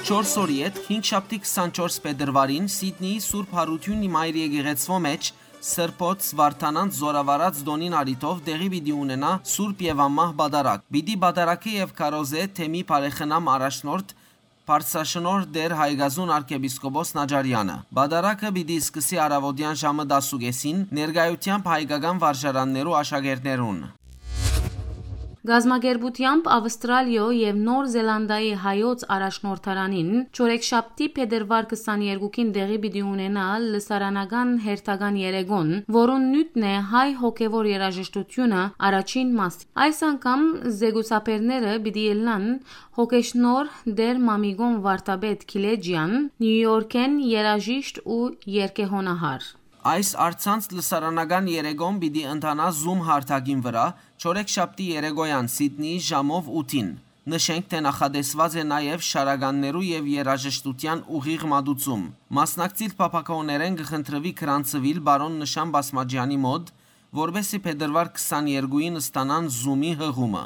Չորս օրի յետ, հինգշաբթի քսանչորս փետրուարին, Սիդնիի Սուրբ Յարութիւնի Մայր Եկեղեցւոյ մէջ Սրբոց Վարդանանց զօրավարած տօնին առիթով տեղի պիտի ունենայ Սուրբ եւ Անմահ Պատարագ։ Պիտի պատարագէ եւ քարոզէ թեմի բարեխնամ առաջնորդ Բարձրաշնորհ Տէր Հայկազուն արքեպիսկոպոս Նաճարեանը։ Պատարագը պիտի սկսի առաւօտեան ժամը տասը ու կէսին, ներկայութեամբ հայկական վարժարաններու աշակերտներուն։ Գազམ་ակերպութեամբ Աւստրալիոյ եւ Նոր Զելանդիայի հայոց առաջնորդարանին չորեքշաբթի փետրուար քսաներկուին տեղի պիտի ունենայ լսարանական հերթական երեկոն, որուն նիւթն է հայ հոգեւոր երաժշտութիւնը առաջին մաս։ Այս անգամ զեկուցաբերները պիտի ելնան հոգեշնորհ Տէր Մամիկոն Վարդապետ Գիլեջեան, Նիու Յորքէն երաժիշտ ու երգեհոնահար։ Այս առցանց լսարանական երեկոն պիտի ընթանայ Zoom հարթակին վրայ, չորեքշաբթի երեկոյեան Սիդնիի ժամով ութին։ Նշենք, թէ նախատեսուած է նաեւ շարականներու եւ երաժշտութեան ուղիղ մատուցում։ Մասնակցիլ փափաքաւներէն կը խնդրուի գրանցուիլ պարոն Նշան Բասմաճեանի մօտ, որպէս զի փետրուար քսաներկուին ստանան Zoom-ի յղումը։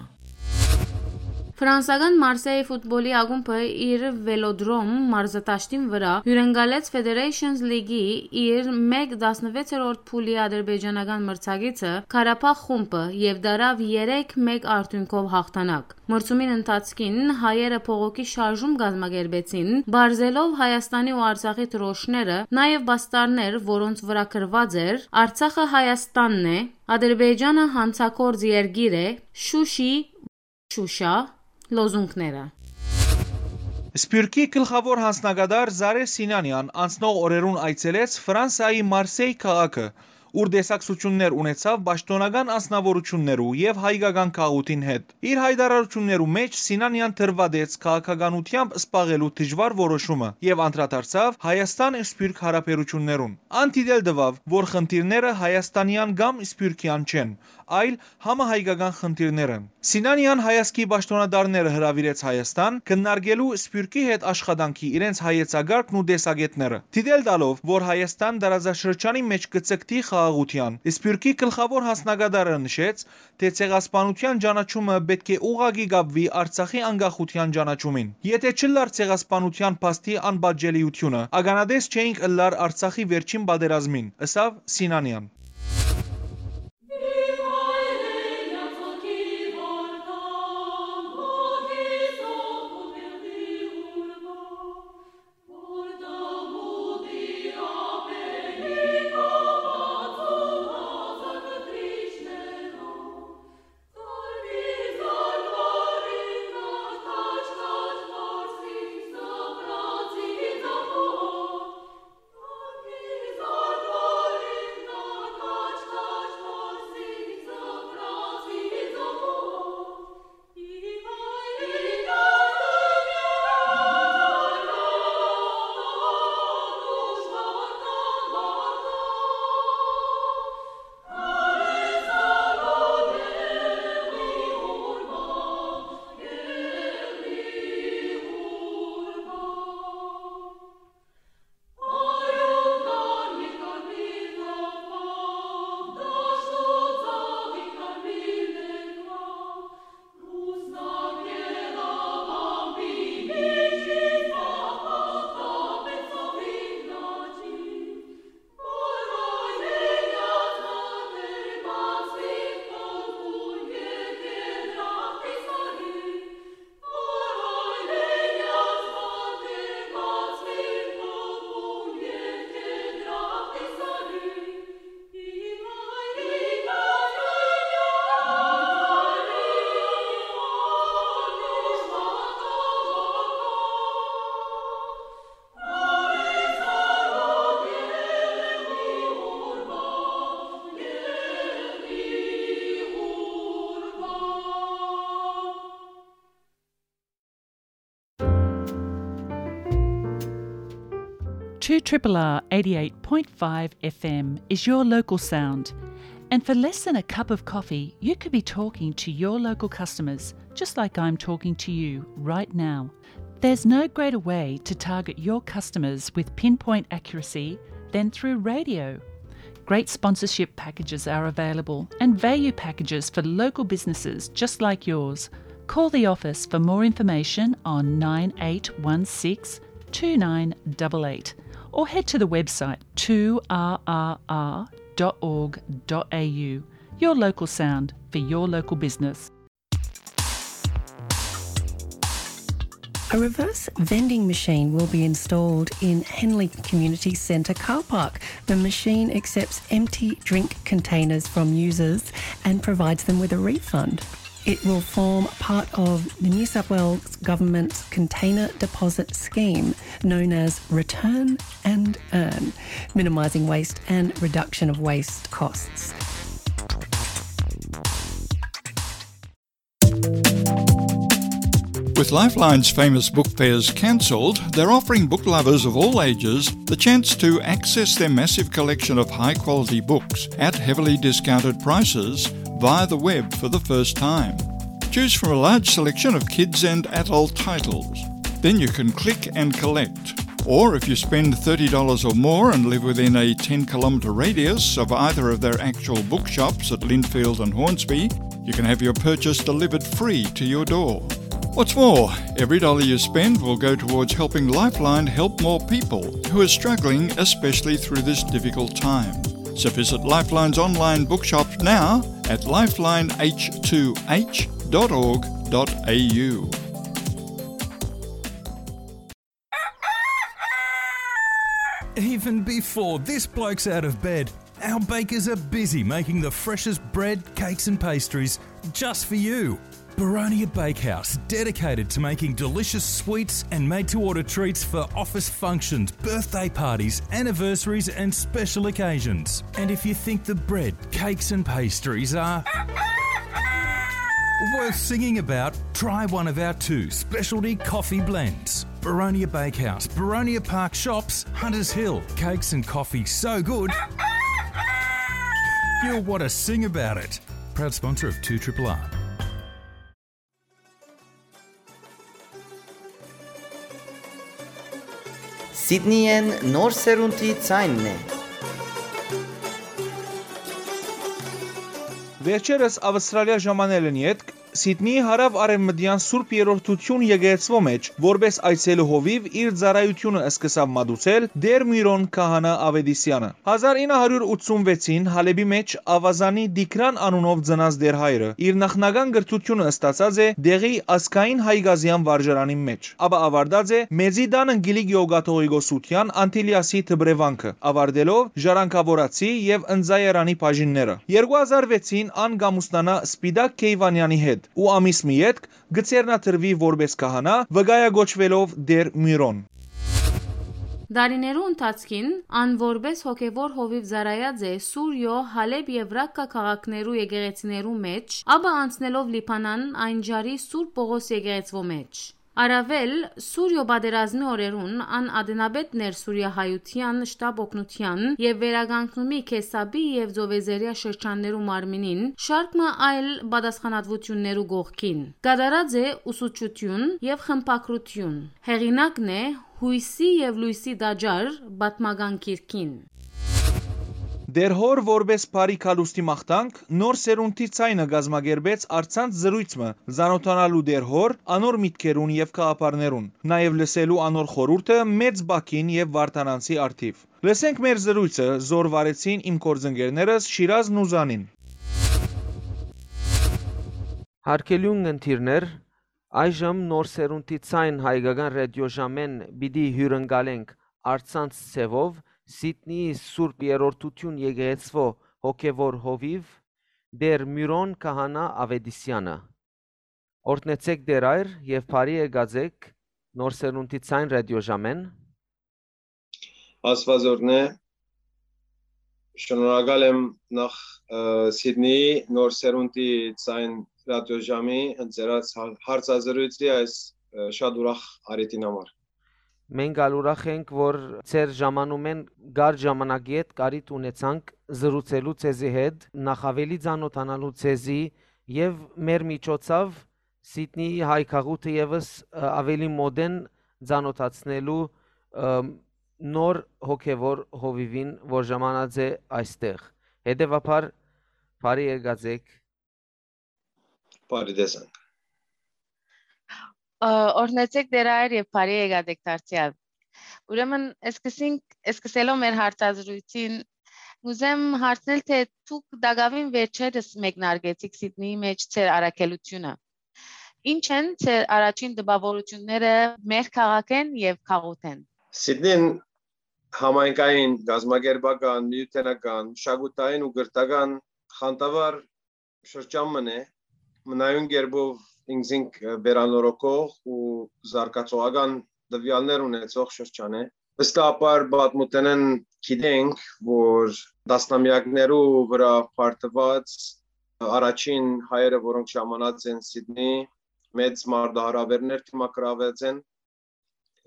Ֆրանսական Մարսէյ ֆուտբոլի ակումբը իր Վելոդրոմ մարզադաշտին վրայ հիւրընկալեց Federations League-ի իր մէկ տասնվեցերորդ փուլի ադրբեջանական մրցակիցը՝ Ղարաբաղ խումբը, եւ տարաւ երեք մէկ արդիւնքով յաղթանակ։ Մրցումին ընթացքին հայերը բողոքի շարժում կազմակերպեցին, պարզելով Հայաստանի ու Արցախի դրոշները, նաեւ պաստառներ, որոնց վրայ գրուած էր «Արցախը Հայաստանն է», «Ադրբեջանը յանցագործ երկիր է», «Շուշի, Շուշա» լոզունգները։ Սփիւռքի գլխաւոր յանձնակատար Զարէ Սինանեան անցնող օրերուն այցելեց Ֆրանսայի Մարսէյ քաղաքը, ուր տեսակցութիւններ ունեցաւ պաշտօնական անձնաւորութիւններու եւ հայկական գաղութին հետ։ Իր յայտարարութիւններու մէջ Սինանեան դրուատեց քաղաքականութեամբ զբաղելու դժուար որոշումը եւ անդրադարձաւ Հայաստան-Սփիւռք հարաբերութիւններուն։ Ան դիտել տուաւ, որ խնդիրները հայաստանեան կամ սփիւռքեան չեն, այլ համահայկական խնդիրներ են։ Սինանեան հայազգի պաշտօնատարները հրաւիրեց Հայաստան՝ քննարկելու Սփիւռքի հետ աշխատանքի իրենց հայեցակարգն ու տեսակէտները, դիտել տալով, որ Հայաստան տարածաշրջանի մէջ կը ձգտի խաղաղութեան։ Սփիւռքի գլխաւոր յանձնակատարը նշեց, թէ ցեղասպանութեան ճանաչումը պէտք է ուղղակի կապուի Արցախի անկախութեան ճանաչումին։ Եթէ չըլլար ցեղասպանութեան փաստի անպատժելիութիւնը, ականատես չէինք ըլլար Արցախի վերջին պատերազմին, ըսաւ Սինանեան։ Two triple R eighty-eight point five F M is your local sound. And for less than a cup of coffee, you could be talking to your local customers, just like I'm talking to you right now. There's no greater way to target your customers with pinpoint accuracy than through radio. Great sponsorship packages are available and value packages for local businesses just like yours. Call the office for more information on nine eight one six two nine double eight or head to the website two R R R dot org dot A U. Your local sound for your local business. A reverse vending machine will be installed in Henley Community Centre car park. The machine accepts empty drink containers from users and provides them with a refund. It will form part of the New South Wales Government's container deposit scheme, known as Return and Earn, minimising waste and reduction of waste costs. With Lifeline's famous book fairs cancelled, they're offering book lovers of all ages the chance to access their massive collection of high quality books at heavily discounted prices via the web for the first time. Choose from a large selection of kids and adult titles. Then you can click and collect. Or if you spend thirty dollars or more and live within a ten kilometre radius of either of their actual bookshops at Lindfield and Hornsby, you can have your purchase delivered free to your door. What's more, every dollar you spend will go towards helping Lifeline help more people who are struggling, especially through this difficult time. So visit Lifeline's online bookshop now at lifeline h two h dot org dot a u. Even before this bloke's out of bed, our bakers are busy making the freshest bread, cakes, and pastries just for you. Baronia Bakehouse, dedicated to making delicious sweets and made to order treats for office functions, birthday parties, anniversaries, and special occasions. And if you think the bread, cakes, and pastries are worth singing about, try one of our two specialty coffee blends. Baronia Bakehouse, Baronia Park Shops, Hunters Hill. Cakes and coffee so good, you'll want to sing about it. Proud sponsor of two triple R. Սիդնիեն նոր սերունդի ձայնն է։ Վերջերս Ավստրալիա ժամանելն ետք Սիդնիի հարաւ արեւմտեան Սուրբ Երրորդութիւն եկեղեցւոյ մէջ որպէս այցելու հովիւ իր ծառայութիւնը սկսաւ մատուցել Տէր Միրոն քահանայ Աւետիսեանը։ Հազար ինը հարիւր ութսուն վեցին Հալէպի մէջ Աւազանի Տիգրան անունով ծնած Տէր հայրը իր նախնական կրթութիւնը ստացած է տեղի ազգային հայկազեան վարժարանին մէջ, ապա աւարտած է Մեծի տան Անգելիկ Յոգ-կաթողիկոսութեան Անտիլիասի դպրեվանքը, աւարտելով Ժառանգաւորացի եւ Ընծայարանի բաժինները։ Երկու հազար վեցին ան կ'ամուսնանայ Սպիտակ Քեյվանեանի հետ ու ամիս մը ետք կը ձեռնադրուի որպէս քահանայ, վկայակոչուելով Տէր Միրոն։ Տարիներու ընթացքին ան որպէս հոգեւոր հովիւ ծառայած է Սուրիոյ Հալէպ եւ Ռակկա քաղաքներու եկեղեցիներու մէջ, ապա անցնելով Լիբանան, այն ջարի Սուրբ Պողոս եկեղեցւոյ մէջ։ Առաւել, Սուրիոյ պատերազմի օրերուն ան ատենապետն էր Սուրիա հայութեան շտապ օգնութեան եւ վերականգնումի Քեսապի եւ Ծովեզերիա շրջաններու մարմինին շարք մը այլ պատասխանատուութիւններու կողքին։ Կատարած է ուսուցչութիւն եւ խմբագրութիւն։ Հեղինակն է Յոյսի եւ Լոյսի տաճար պատմական գիրքին։ Տէր հօր որպէս բարի գալուստի մաղթանք, նոր սերունդի ձայնը կազմակերպեց առցանց զրոյց մը, ծանօթանալու Տէր հօր, անոր միտքերուն եւ գաղափարներուն, նաեւ լսելու անոր խորհուրդը մեծ բակին եւ վարդանանցի առթիվ։ Լսենք մեր զրոյցը, զոր վարեցին իմ գործընկերներս Շիրազն ու Զանին։ Հարգելի ունգընտիրներ, այժմ նոր սերունդի ցայն հայկական ռադիոժամեն պիտի հյուրընկալենք առցանց ձևով Սիդնիի Սուրբ Երրորդություն եկեղեցվո հոգևոր հովիվ Տեր Մյուրոն Քահանա Ավետիսյանը։ Օրհնեցեք Տեր Այր եւ բարի եկած եք նոր սերունդի ցայն ռադիոժամեն։ Աստված օրհնե։ Շնորհակալ եմ նախ, ը, Սիդնեի նոր սերունդի ցայն ռադիոժամի ընծերած հա-, հարցազրույցի այս, ը, շատ ուրախ առիթին համար։ Մենք ալ ուրախ ենք, որ ձեր ժամանումեն կար ժամանակի հետ կարիթ ունեցանք զրուցելու ձեզի հետ, նախ ավելի ծանոթանալու ձեզի եւ մեր միջոցով Սիդնեի հայ քաղուտը եւս, ը, ավելի մոդեն ծանոթացնելու, ը, նոր հոգեվոր հովիվին, որ ժամանած է այստեղ։ Հետևաբար, բարի եկած եք։ Բարի տեսանք։ Ա, օրհնեցեք Տէր Հայր եւ բարի եկած եք դարձեալ։ Ուրեմն, սկսենք, սկսելով մեր հարցազրույցին, կուզեմ հարցնել, թե դուք տակաւին վերջերս մեկնարկեցիք Սիդնիի մէջ ձեր առաքելութիւնը։ Ի՞նչ են ձեր առաջին տպաւորութիւնները մեր քաղաքէն եւ քաղաքէն։ Սիդնին համայնքային, կազմակերպական, միութենական, մշակութային ու կրթական խանդավառ շրջան մըն է, մնայուն կերպով ինքզինք, ը, վերանորոգող ու զարգացողական տվեալներ ունեցող շրջան է։ Վստահաբար պատմութենէն գիտենք, որ տասնամեակներու վրայ պարտուած առաջին հայերը, որոնք ժամանած են Սիդնի, մեծ մարտահրաւերներ դիմագրաւած են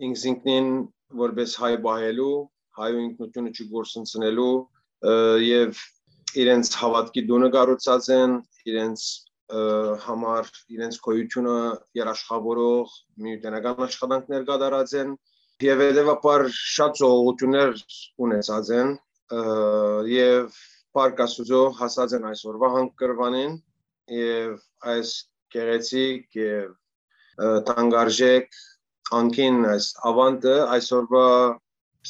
ինքզինքնին որպես հայ պահելու, հայու ինքնութիւնը չկորսնցնելու, ը, եւ իրենց հաւատքի տունը կառուցած են, իրենց, ը, համար, իրենց գոյութիւնը երաշխավորող միութենական աշխատանքներ կատարած են եւ հետեւաբար շատ զոհողութիւններ ունեցած են, ը, եւ փառք Աստուծոյ հասած են այսօրվա հանգրուանին եւ այս գեղեցիկ եւ, ը, թանկարժեք անկին այս աւանդը այսօրվա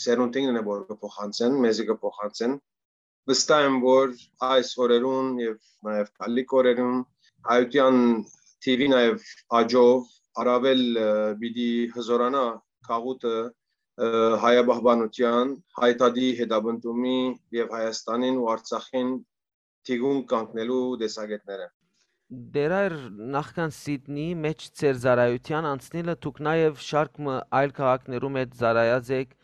սերունդին է, որ կը փոխանցեն, մեզի կը փոխանցեն։ Վստահ եմ, որ այս օրերուն եւ նաեւ գալիք օրերուն հայութեան թիւի նաեւ աճով առաւել, ը, պիտի հզորանայ գաղութը, ը, հայապահպանութեան, հայ դատի հետապնդումի եւ Հայաստանին ու Արցախին թիկունք կանգնելու տեսակէտները։ Դեռ այր նախքան Սիդնիի մէջ ձեր ծառայութեան անցնիլը դուք նաեւ շարք մը այլ քաղաքներու մէջ ծառայած էք,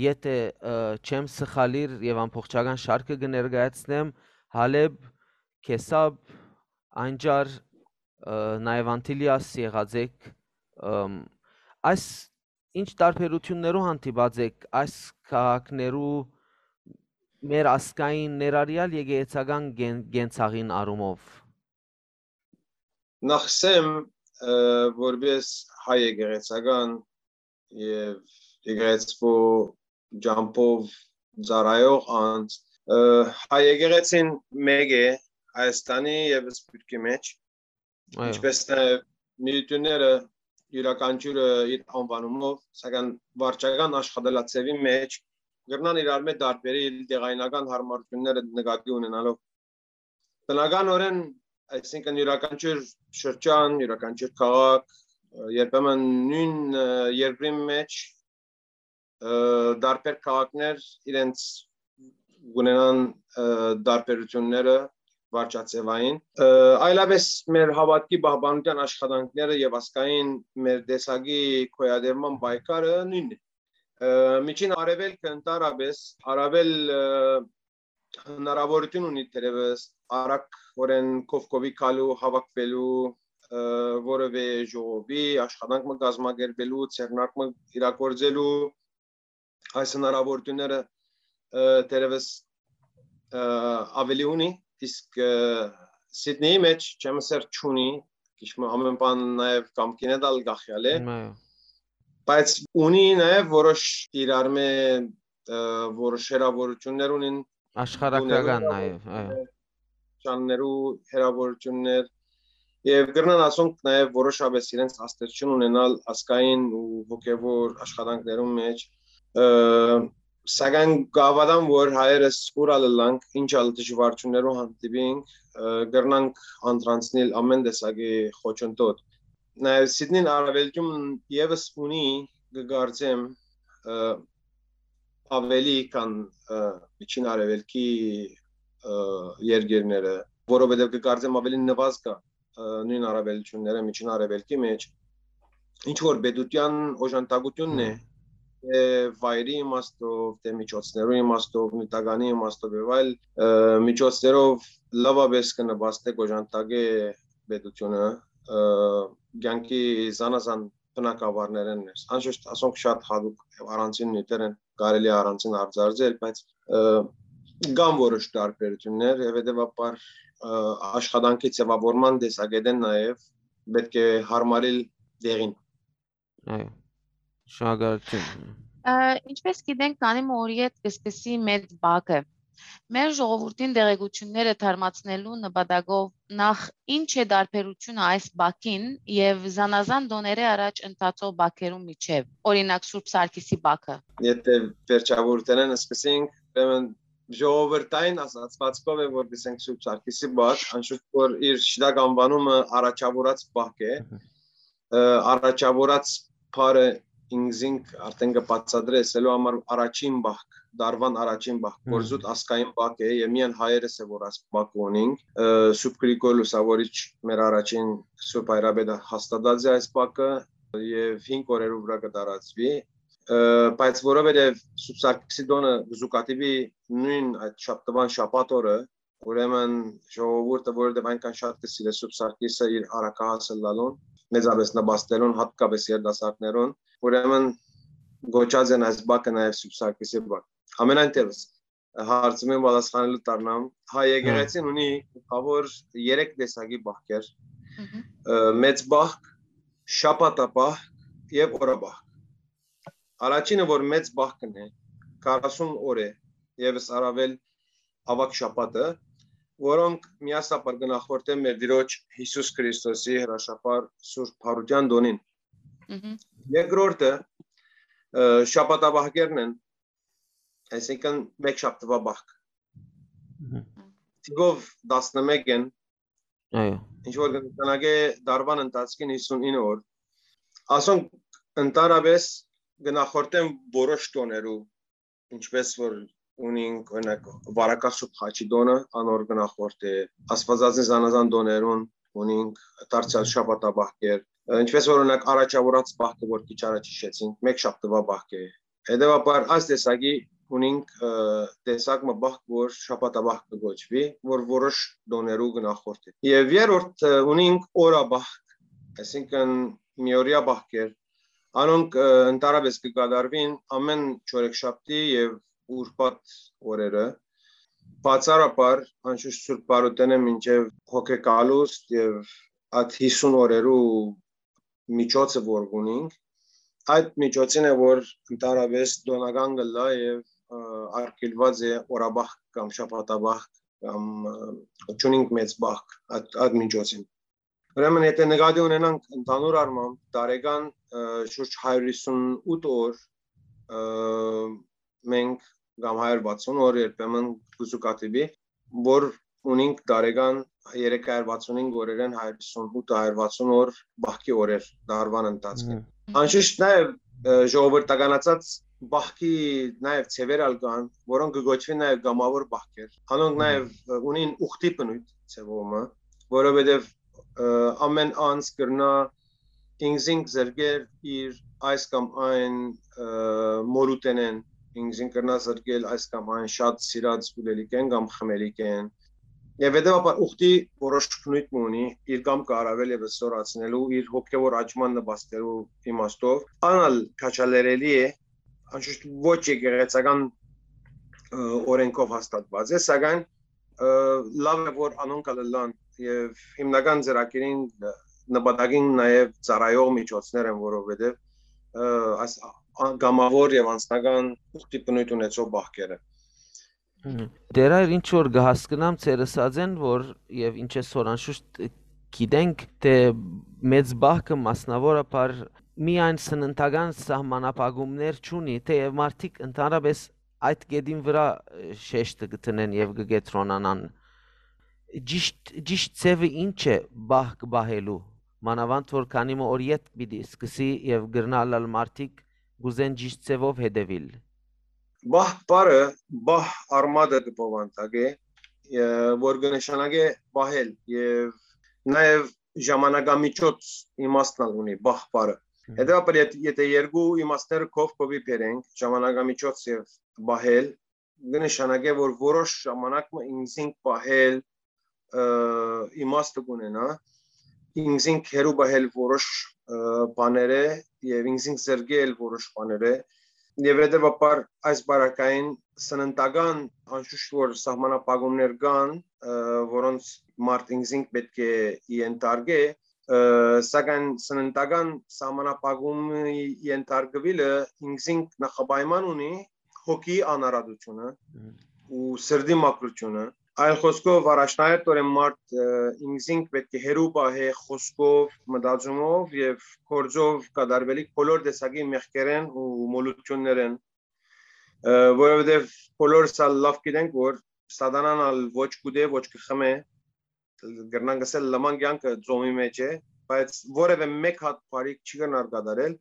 եթէ, ը, չեմ սխալիր եւ ամբողջական շարքը կը ներկայացնեմ, Հալեբ, Քեսապ, Անջար, ը, նաեւ Անտիլիաս եղած էք, ըմ, այս ինչ տարբերութիւններու հանդիպած էք այս քաղաքներու մեր ազգային ներառեալ եկեղեցական կեն-, կենցաղին առումով։ Նախ սեմ, ը, որպես հայ եկեղեցական եւ եկեղեցու ջամբով ծառայող անձ, ը, հայ եկեղեցին մէկ է Հայաստանի եւ Սփիւռքի մէջ, Այո։ ինչպես նաեւ միութիւնները իւրաքանչիւրը իր անուանումով, սակայն վարչական աշխատելաձեւի մէջ կրնան իրար մէջ տարբերել տեղայնական հարմարութիւնները նկատի ունենալով։ Բնականօրէն, այսինքն իւրաքանչիւր շրջան, իւրաքանչիւր քաղաք, ը, երբեմն նոյն, ը, երկրին մէջ, ը, տարբեր քաղաքներ իրենց կունենան, ը, տարբերութիւնները վարչաձեւային, ը, այլապես մեր հաւատքի պահպանութեան աշխատանքները եւ ազգային մեր տեսակի գոյատևման պայքարը նոյնն է։ Ը, Միջին Արեւելքը ընդհանրապես առավել, ը, հնարաւորութիւն ունի թերեւս արագօրէն կողքովի գալու, հաւաքուելու, ը, որեւէ ժողովի, աշխատանք մը կազմակերպելու, ձեռնարկ մը իրագործելու, այս հնարաւորութիւնները, ը, թերեւս, ը, աւելի ունի, իսկ, ը, Սիդնեի մէջ, չեմ ըսեր, չունի, քիչ մը ամէն բան նաեւ կամքին է դալ գախյալ է, Այո։ բայց ունի նաեւ որոշ իրար մէ, ը, որոշ հեռաւորութիւններ ունին Աշխարհագրական տուներու, նաեւ, այո։ շաններու հեռաւորութիւններ եւ կրնան ասոնք նաեւ որոշապես իրենց ազդեցություն ունենալ ազգային ու հոգեվոր աշխատանքներուն մէջ, ը, սակայն կհաւատամ, որ հայերս ուր ալ ըլլանք, ինչ ալ դժուարութիւններու հանդիպինք, ը, կրնանք անդրանցնիլ ամէն տեսակի խոչընդոտ։ Նաեւ Սիդնին առաւելտում եւս ունի, կը կարծեմ, ը, ավելի քան, ը, Միջին Արեւելքի, ը, երկիրները, որովհետեւ կը կարծեմ ավելի նվազ կայ, ը, նոյն առաւելութիւնները Միջին Արեւելքի մէջ, ինչ որ պետութեան օժանդակութիւնն է, Հմ։ թէ վայրի իմաստով, թէ միջոցներու իմաստով, նիւթականի իմաստով եւ այլ, ը, միջոցներով լավապէս կը նպաստէ, կ'օժանդակէ պետութիւնը, ը, կեանքի զանազան բնակավարներէն ներս։ Անշուշտ, ասոնք շատ յատուկ եւ առանձին նիւթեր են, կարելի է առանձին արձարծել, բայց, ը, կան որոշ տարբերութիւններ եւ հետեւաբար, ը, աշխատանքի ձեւավորման տեսակետէն նաեւ պէտք է յարմարիլ դեղին։ Այո, շնորհակալութիւն։ Ը, ինչպես գիտենք, քանի մը օրի հետ կը սկսի մեծ բակը։ Մեր ժողովուրդին տեղեկութիւնները թարմացնելու նպատակով, նախ, ի՞նչ է տարբերութիւնը այս բակին եւ զանազան տօներէ առաջ ընթացող բակերուն միջեւ, օրինակ, Սուրբ Սարգիսի բակը։ Եթե վերջաւորութենէն սկսենք, ուրեմն ժողովրդային ասացուածքով է, որ գսենք Սուրբ Սարգիսի բակ, անշուշտ որ իր շիտակ անուանումը առաջաւորած բակ է, Մհմ։ ը, առաջաւորած բառը ինքզինք արդեն կը բացատրե, ասելու համար առաջին բակ, դարուան առաջին բակ, Մհմ։ կորզուտ ազգային բակ է, եւ միայն հայերս է, որ այս բակը ունինք, ը, Սուրբ Գրիգոր Լուսավորիչ մեր առաջին Սուրբ Հայրապետը հաստատած է այս բակը, եւ հինգ օրերու վրայ կը տարածուի, ը, բայց որովհետեւ Սուրբ Սարգիսի տօնը կը զուգադիպի նոյն այդ շաբթուան շաբաթ օրը, ուրեմն ժողովուրդը, որովհետեւ այնքան շատ կը սիրէ Սուրբ Սարգիսը իր առակահաս ըլլալուն, մեծապէս նպաստելուն, հատկապէս երիտասարդներուն, ուրեմն գոչած են այս բակը նաեւ Սուրբ Սարգիսի բակ։ Ամենայն դեպս, հարցումին պատասխանելու դառնամ, հայ եկեղեցին ունի գլխաւոր երեք տեսակի բակեր, Մհմ։ ը, մեծ բակ, շաբաթաբակ եւ օրաբակ։ Առաջինը, որ մեծ բակն է, քառասուն օր է, եւս առավել աւագ շաբաթը, որոնք միասնապար կը նախորդեն մեր Տիրոջ Յիսուս Քրիստոսի հրաշափառ Սուրբ Բարութեան տօնին։ Մհմ։ Երկրորդը, ը, շաբաթաբակերն են, այսինքն՝ մեկ շաբթուա բակ։ Մհմ։ Թիվով տասնմեկ են, Այո։ ինչ որ կը նշանակէ դարուան ընթացքին հիսուն ինը օր։ Ասոնք ընդհանրապէս կը նախորդեն որոշ տօներու, ինչպես որ ունինք, օրինակ, Վարակա Սուրբ Խաչի տօնը, անոր կը նախորդէ, Աստվածածին զանազան տօներուն ունինք դարձեալ շաբաթաբակեր, ինչպես որ, օրինակ, առաջաւորած բակը, որ քիչ առաջ հիշեցինք, մեկ շաբթուա բակ է։ Հետեւաբար, այս տեսակի ունինք, ը, տեսակ մը բակ, որ շաբաթաբակ կը կոչուի, որ որոշ տօներու կը նախորդէ։ Եւ երրորդ, ը, ունինք օրաբակ, այսինքն՝ միօրեայ բակեր, անոնք, ը, ընդհանրապէս կը կատարուին ամէն չորեքշաբթի եւ ուրբաթ օրերը, բացառաբար, անշուշտ, Սուրբ Բարութենէ մինչեւ հոգեկալուստ եւ այդ հիսուն օրերու միջոցը, որ ունինք, այդ միջոցին է, որ ընդհանրապէս տօնական կ'ըլլայ եւ, ը, արգիլուած է օրաբակ կամ շաբաթաբակ կամ, ը, չունինք մեծ բակ այդ, այդ միջոցին։ Ուրեմն, եթե նկատի ունենանք ընդհանուր առմամբ, տարեկան, ը, շուրջ հարիւր հիսուն ութ օր, ը, մենք կամ հարիւր վաթսուն օր երբեմն կը զուգադիպի, որ ունինք տարեկան երեք հարիւր վաթսուն հինգ օրերէն հարիւր հիսուն ութ, հարիւր վաթսուն օր բախքի օրեր դարուան ընթացքին։ Մհմ։ Անշուշտ նաեւ, ը, ժողովրդականացած բախքի նաեւ ձեւեր ալ կան, որոնք կը կոչուին նաեւ կամաւոր բախքեր։ Անոնք Մհմ։ նաեւ, ը, ունին ուխտի բնոյթ ձեւով մը, որովհետեւ, ը, ամէն անձ կրնայ ինքզինք զրկել իր այս կամ այն, ը, մորութենէն, ինքզինք կրնայ զրկել այս կամ այն շատ սիրած ուլելիքէն կամ խմելիքէն։ Եւ հետեւաբար ուխտի որոշ բնոյթ մը ունի, իր կամքը առավել եւս զօրացնելու, իր հոգեւոր աճման նպաստելու իմաստով, ան ալ քաջալերելի է, անշուշտ ոչ եկեղեցական, ը, օրենքով հաստատված է, սակայն, ը, լաւ է, որ անոնք ալ ըլլան, եւ հիմնական ծրագիրին, ը, նպատակին նաեւ ծառայող միջոցներ են, որովհետեւ, ը, այս ա-, կամաւոր եւ անձնական ուխտի բնոյթ ունեցող բախքերը։ Մհմ։ Տեր Հայր, ինչ որ կը հասկնամ, ձեր ըսածէն, որ եւ ինչպես որ անշուշտ գիտենք, թէ մեծ բախքը մասնաւորաբար միայն սննդական սահմանափակումներ չունի, թէեւ մարդիկ ընդհանրապէս այդ կետին վրայ, ը, շեշտը կը դնեն եւ կը կեդրոնանան։ Ճիշտ, ճիշտ ձեւը ի՞նչ է բախք պահելու, մանաւանդ որ քանի մը օր ետք պիտի սկսի եւ կրնայ ըլլալ մարդիկ կ'ուզեն ճիշտ ձեւով հետեւիլ։ Բահ բառը, բահ արմատը կը բովանդակէ, ը, որ կը նշանակէ պահել, եւ նաեւ ժամանակամիջոց իմաստն ալ ունի բահ բառը։ Մհմ։ Հետեւաբար, եթ-, եթէ երկու իմաստները քով քովի բերենք, ժամանակամիջոց եւ պահել, կը նշանակէ, որ որոշ ժամանակ մը ինքզինք պահել, ը, իմաստը կունենայ, ինքզինք հեռու պահել որոշ, ը, բաներէ եւ ինքզինք զրկել որոշ բաներէ, եւ հետեւաբար այս պարագային սննդական անշուշտ որ սահմանափակումներ կան, ը, որոնց մարդ ինքզինք պէտք է ենթարկէ, ը, սակայն սննդական սահմանափակումի ենթարկուիլը ինքզինք նախապայման ունի հոգի անարատությունը, Մհմ։ ու սրտի մաքրութիւնը։ Այլ խօսքով, առաջնահերթօրէն մարդ, ը, ինքզինք պէտք է հեռու պահէ խօսքով, մտածումով եւ գործով կատարուելիք բոլոր տեսակի մեղքերէն ու մոլութիւններէն, ը, որովհետեւ բոլորս ալ լաւ գիտենք, որ սատանան ալ ոչ կուտէ, ոչ կը խմէ, կրնանք ըսել լման կեանքը ծոմի մէջ է, բայց որեւէ մէկ հատ բարիք չի կրնար կատարել,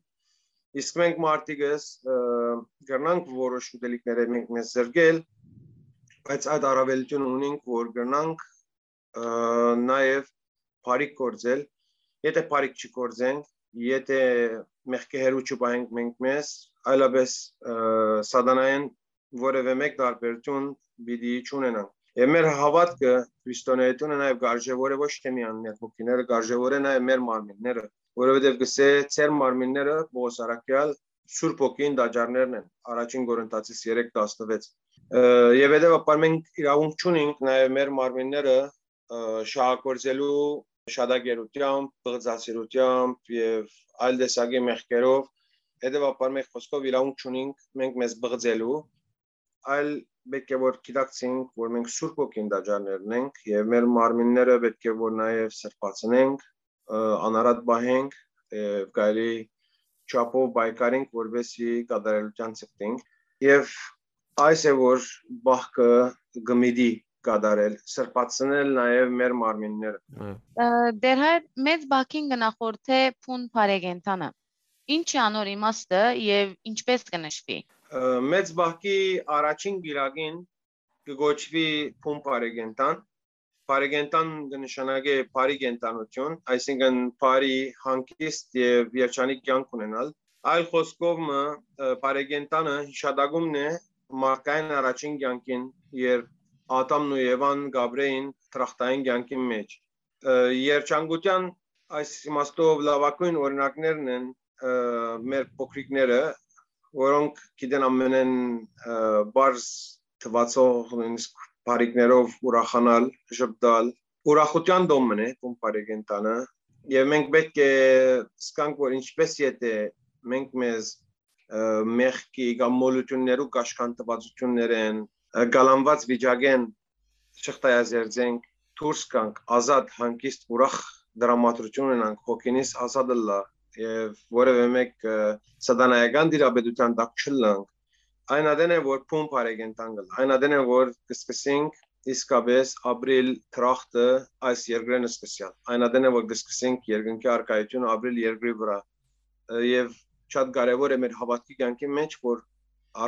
իսկ մենք մարդիկս, ը, կրնանք որոշ ուտելիքները մենք մեզ զրկել, բայց այդ առավելութիւնը ունենք, որ կրնանք, ը, նաեւ բարիք գործել, եթե բարիք չի գործենք, եթե մեղքի հեռու չպահենք մենք մեզ, այլապէս, ը, սատանայէն որեւէ մէկ տարբերութիւն պիտի չունենանք։ Եւ մեր հաւատքը, քրիստոնէությունը նաեւ կարժեւոր է ոչ թե միայն մեր հոգիները, կարժեւոր է նաեւ մեր մարմինները, որովհետեւ կսէ, «Ձեր մարմինները», Պողոս առաքեալ, Սուրբ Հոգին տաճարներն են, Առաջին Կորինթացիս երեք տասնվեց։ Ը, եւ հետեւաբար մենք իրաւունք չունենք նաեւ մեր մարմինները, ը, շահագործելու շատակերությամբ, պղծասիրությամբ եւ այլ տեսակի մեղքերով, հետեւաբար մէկ խօսքով իրաւունք չունենք մենք մեզ պղծելու, այլ պէտք է որ գիտակցենք, որ մենք Սուրբ Հոգին տաճարներն ենք եւ մեր մարմինները պէտք է որ նաեւ սրբացնենք, ը, անարատ պահենք, ը, կարելի չափով պայքարենք, որպեսզի կատարելութեան ձգտենք։ Եւ այս է որ բախքը կը միտի կատարել, սրբացնել նաեւ մեր մարմինները։ Այո։ Ը, Տեր հայր, մեծ բակին կը նախորդէ փուն բարեկենդանը։ Ինչ է անոր իմաստը եւ ինչպէս կը նշուի։ Ը, մեծ բակի առաջին գիրագին կը կոչուի փուն բարեկենդան։ Բարեկենդան կը նշանակէ բարի կենդանութիւն, այսինքն բարի, հանգիստ եւ երջանիկ կեանք ունենալ։ Այլ խօսքով մը, ը, բարեկենդանը յիշատակումն է մարդկային առաջին կեանքին, երբ Ադամն ու Եվան կ'ապրէին դրախտային կեանքին մէջ։ Ը, երջանկութեան այս իմաստով լաւագոյն օրինակներն են, ը, մեր փոքրիկները, որոնք գիտեն ամենէն, ը, պարզ թուացող նոյնիսկ բարիքներով ուրախանալ, ժպտալ։ Ուրախութեան տոն մըն է փուն բարեկենդանը, եւ մենք պէտք է զգանք, որ ինչպէս եթե մենք մեզ, ը, մեղքի կամ մոլութիւններու կաշկանդուածութիւններէն, ը, կալանուած վիճակէն չխտայազերծենք, դուրս գանք, ազատ, հանգիստ, ուրախ դրամատրութիւն ունենանք, հոգինիս ազատ ըլլայ եւ որեւէ մէկ, ը, սատանայական տիրապետութեան տակ չըլլանք, այն ատեն է որ փուն բարեկենդան կ'ըլլայ, այն ատեն է որ կը սկսենք իսկապէս ապրիլ դրախտը այս երկրէն սկսեալ, այն ատեն է որ կը սկսենք երկնքի առկայութիւնը ապրիլ երկրի վրայ, ը, եւ շատ կարեւոր է մեր հաւատքի կեանքի մէջ, որ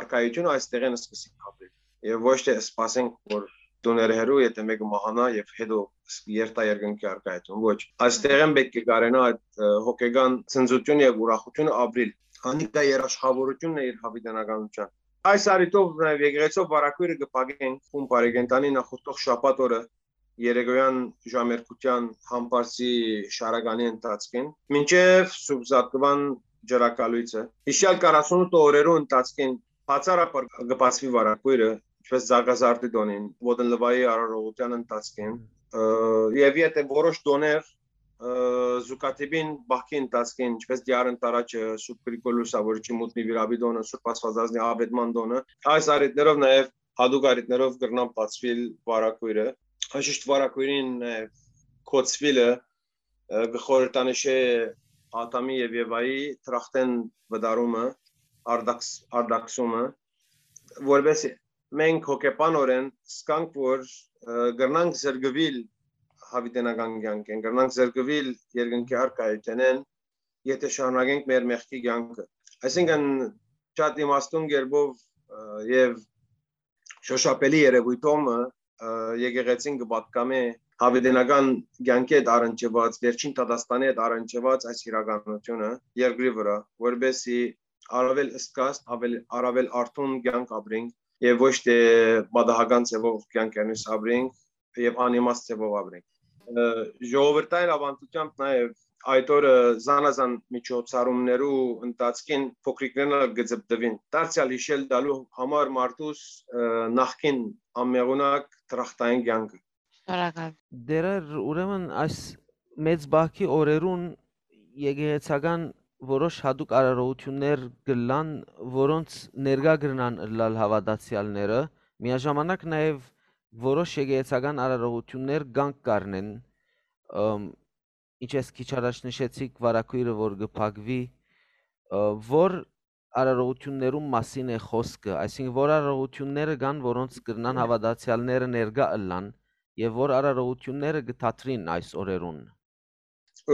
առկայութիւնը այս տեղէն սկսենք ապրիլ եւ ոչ թե սպասենք, որ տուները հեռու, եթե մէկը մահանայ եւ հետո ս-, երթայ երկնքի առկայութիւն։ Ոչ, այս տեղէն պէտք է կարենայ այդ, ը, հոգեկան ցնծութիւնը եւ ուրախութիւնը ապրիլ։ Անիկա երաշխավորութիւնն է իր յաւիտենականութեան։ Այս առիթով նաեւ եկեղեցով վարակոյրը կը փակենք փուն բարեկենդանի նախորդող շաբաթ օրը, երեկոյեան ժամերգութեան համբարձի շարականի ընթացքին, մինչեւ Սուրբ Զատկուան ջրակալոյցը։ Յիշեալ քառասունութ օրերու ընթացքին բացառաբար կը բացուի վարակոյրը, ինչպես Զագազարդի տօնին, Ոտնլուայի արարողութեան ընթացքին, ը, եւ եթե որոշ տօներ, ը, զուգադիպին բախքի ընթացքին, ինչպես Դիար Ընտարաչը, Սուրբ Գրիգոր Լուսավորիչի մութ նուիրապի տօնը, Սուրբ Աստվածածնի Աւետման տօնը, այս առիթներով նաեւ հատուկ առիթներով կրնան բացուիլ վարակոյրը։ Անշուշտ վարակոյրին, ը, կոչուիլը, ը, կը խորհրդանշէ Ադամի եւ Եվայի դրախտէն վտարումը, արդաքս-, արդաքսումը, որպէս մենք հոգեբանօրէն զգանք, որ, ը, կրնանք զրկուիլ յաւիտենական կեանքէն, կրնանք զրկուիլ երկնքի առկայութենէն, եթե շարունակենք մեր մեղքի կեանքը։ Այսինքն, շատ իմաստուն կերպով, ը, եւ շոշափելի երեւոյթով մը, ը, եկեղեցին կը պատկամէ յաւիտենական կեանքի հետ առնչուած, վերջին դատաստանի հետ առնչուած այս իրականութիւնը երկրի վրայ, որպեսզի առավել զգաստ, ավել-, առավել արթուն կեանք ապրենք եւ ոչ թե պատահական ձեւով կեանքերնիս ապրենք եւ անիմաստ ձեւով ապրենք։ Ը, ժողովրդային աւանդութեամբ նաեւ այդ օրը զանազան միջոցառումներու ընթացքին փոքրիկներն ալ կը ձպտուին, դարձեալ յիշել տալու համար մարդուս, ը, նախկին անմեղունակ դրախտային կեանքը։ Շնորհակալ։ Դերեր, ուրեմն այս մեծ բակի օրերուն եկեղեցական որոշ հատուկ արարողություններ կ'ըլլան, որոնց ներկայ կրնան ըլլալ հաւատացեալները, Միաժամանակ նաեւ որոշ եկեղեցական արարողութիւններ կանգ կ'առնեն, ըմ, ինչպես քիչ առաջ նշեցիք, վարագոյրը որ կը փակուի, ը, որ արարողութիւններուն մասին է խօսքը, այսինքն որ արարողութիւնները կան, որոնց կրնան հաւատացեալները ներկայ ըլլան եւ որ արարողութիւնները կը դադրին այս օրերուն։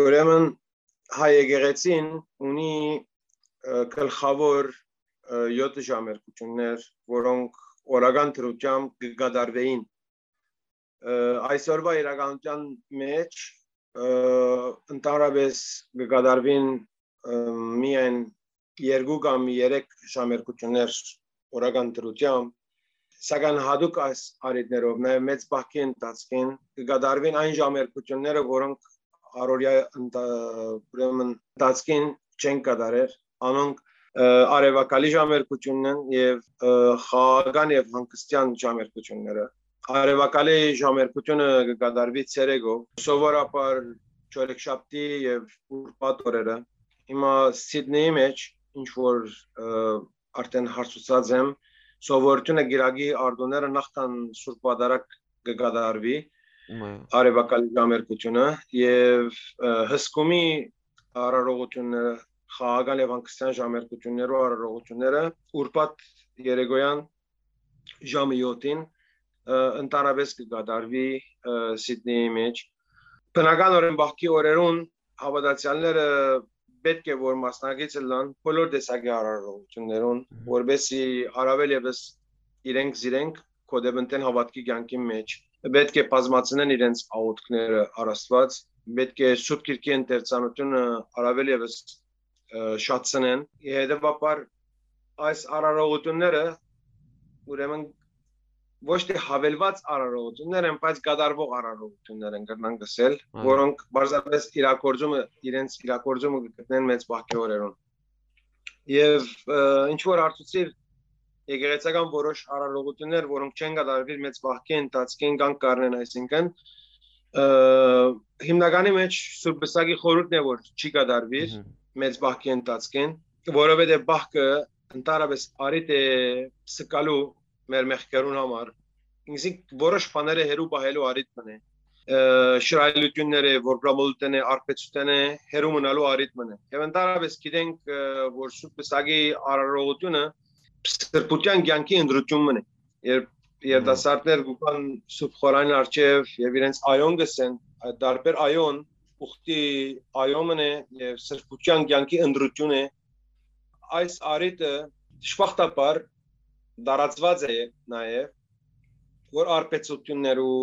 Ուրեմն հայ եկեղեցին ունի, ը, գլխաւոր, ը, յոթ ժամերգութիւններ, որոնք օրական դրությամբ կը կատարուէին։ Ը, այսօրվա իրականութեան մէջ, ը, ընդհանրապես կը կատարուին, ը, միայն երկու կամ երեք ժամերգութիւններ օրական դրությամբ, սակայն յատուկ այս առիթներով, նաեւ մեծ պահքի ընթացքին, կը կատարուին այն ժամերգութիւնները, որոնք առօրեայ ընթա-, ուրեմն ընթացքին չեն կատարեր, անոնք, ը, արեւակալի ժամերգութիւնն են եւ, ը, խաղաղական եւ հանգստեան ժամերգութիւնները։ Արեւակալի ժամերգութիւնը կը կատարուի ցերեկով, սովորաբար չորեքշաբթի եւ ուրբաթ օրերը։ Հիմա Սիդնեի մէջ, ինչ որ, ը, արդեն հարցուցած եմ, սովորութիւնը կիրակի արտոնները նախքան Սուրբ Պատարագ կը կատարուի, Մայ։ արեւակալի ժամերգութիւնը եւ, ը, հսկումի արարողութիւնները, խաղաղական եւ հանգստեան ժամերգութիւններու արարողութիւնները ուրբաթ երեկոյան ժամը յոթին, ը, ընդհանրապես կը կատարուի, ը, Սիդնեի մէջ։ Բնականօրէն պահքի օրերուն հաւատացեալները պէտք է որ մասնակից ըլլան բոլոր տեսակի արարողութիւններուն, Մհմ։ որպեսզի առաւել եւս իրենք զիրենք գոյտեւնեն հաւատքի կեանքին մէջ։ Պէտք է բազմացնեն իրենց աղօթքները առ Աստուած, պէտք է Սուրբ Գիրքի ընթերցանութիւնը առաւել եւս, ը, շատցնեն։ Հետեւաբար այս արարողութիւնները, ուրեմն, ոչ թե հավելուած արարողութիւններ են, բայց կատարուող արարողութիւններ են, կրնանք ըսել, Այո։ որոնք պարզապես իրագործումը, իրենց իրագործումը կը գտնեն մեծ պահքի օրերուն։ Եւ, ը, ինչ որ հարցուցիր, եկեղեցական որոշ արարողութիւններ, որոնք չեն կատարուիր մեծ պահքի ընթացքին, կանգ կ'առնեն, այսինքն, ը, հիմնականի մէջ Սուրբ Պսակի խորհուրդն է, որ չի կատարուիր Մհմ։ մեծ պահքի ընթացքին, որովհետեւ պահքը ընդհանրապես առիթ է սկալու մեր մեղքերուն համար, ինքզինք որոշ բաները հեռու պահելու առիթ մնե, ը, շռայլութիւնները, որբրամոլութենը, արբեցութենը հեռու մնալու առիթ մնե։ Եւ ընդհանրապես գիտենք, ը, որ Սուրբ Պսակի արարողութիւնը սրբութեան կեանքի ընտրութիւն մնե։ Երբ երիտասարդներ կու գան Սուրբ Խորանին առջեւ եւ իրենց այոն կ'ըսեն, այդ տարբեր այոն, ուխտի այոն մնե եւ սրբութեան կեանքի ընտրութիւն է, այս առիթը դժբախտաբար տարածուած է նաեւ, որ արբեցութիւններու,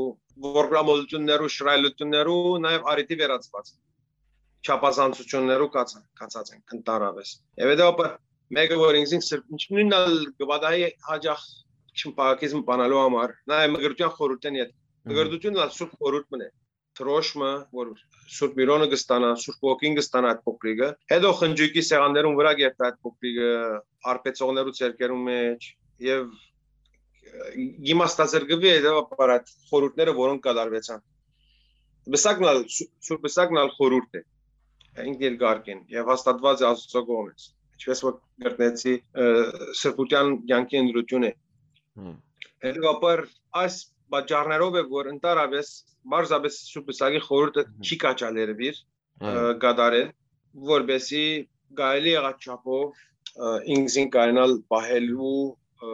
որբրամոլութիւններու, շռայլութիւններու նաեւ առիթի վերածուած է, չափազանցութիւններու կացած, կացած են ընդհանրապես։ Եւ հետեւաբար մէկը, որ ինքզին սրբ-, ինչ նույնն ալ կը պատահի հաճախ չմփակիզմ բանալու համար, նաեւ մկրտության խորհուրդեն յետ։ Մհմ։ Մկրտությունն ալ Սուրբ Խորհուրդ մնե, դրոշմը, որ Սուրբ Միրոնը կը ստանայ, Սուրբ Ոգին կը ստանայ այդ փոքրիկը, հետո խնջոյկի սեղաններուն վրայ կերտայ այդ փոքրիկը, արբեցողներու ձեռքերուն մէջ, եւ, ը, իմաստազրկուի հետեւաբար այդ խորհուրդները, որոնք կատարուեցան։ Պսակն ալ, Սու-, Սուրբ Պսակն ալ խորհուրդ է, ինքն իր կարգին, եւ հաստատուած է Աստուծոյ կողմէ, ինչպես որ կրկնեցի, ը, սրբութեան կեանքի ընտրութիւն է։ Հմ։ Հետեւաբար այս պատճառներով է, որ ընդհանրապես պարզապես Սուրբ Պսակի խորհուրդը Հմ։ չի կաչալերուիր, Այո։ ը, կատարել, որպեսզի կարելի եղած չափով, ը, ինքզին կարենալ պահելու, ը,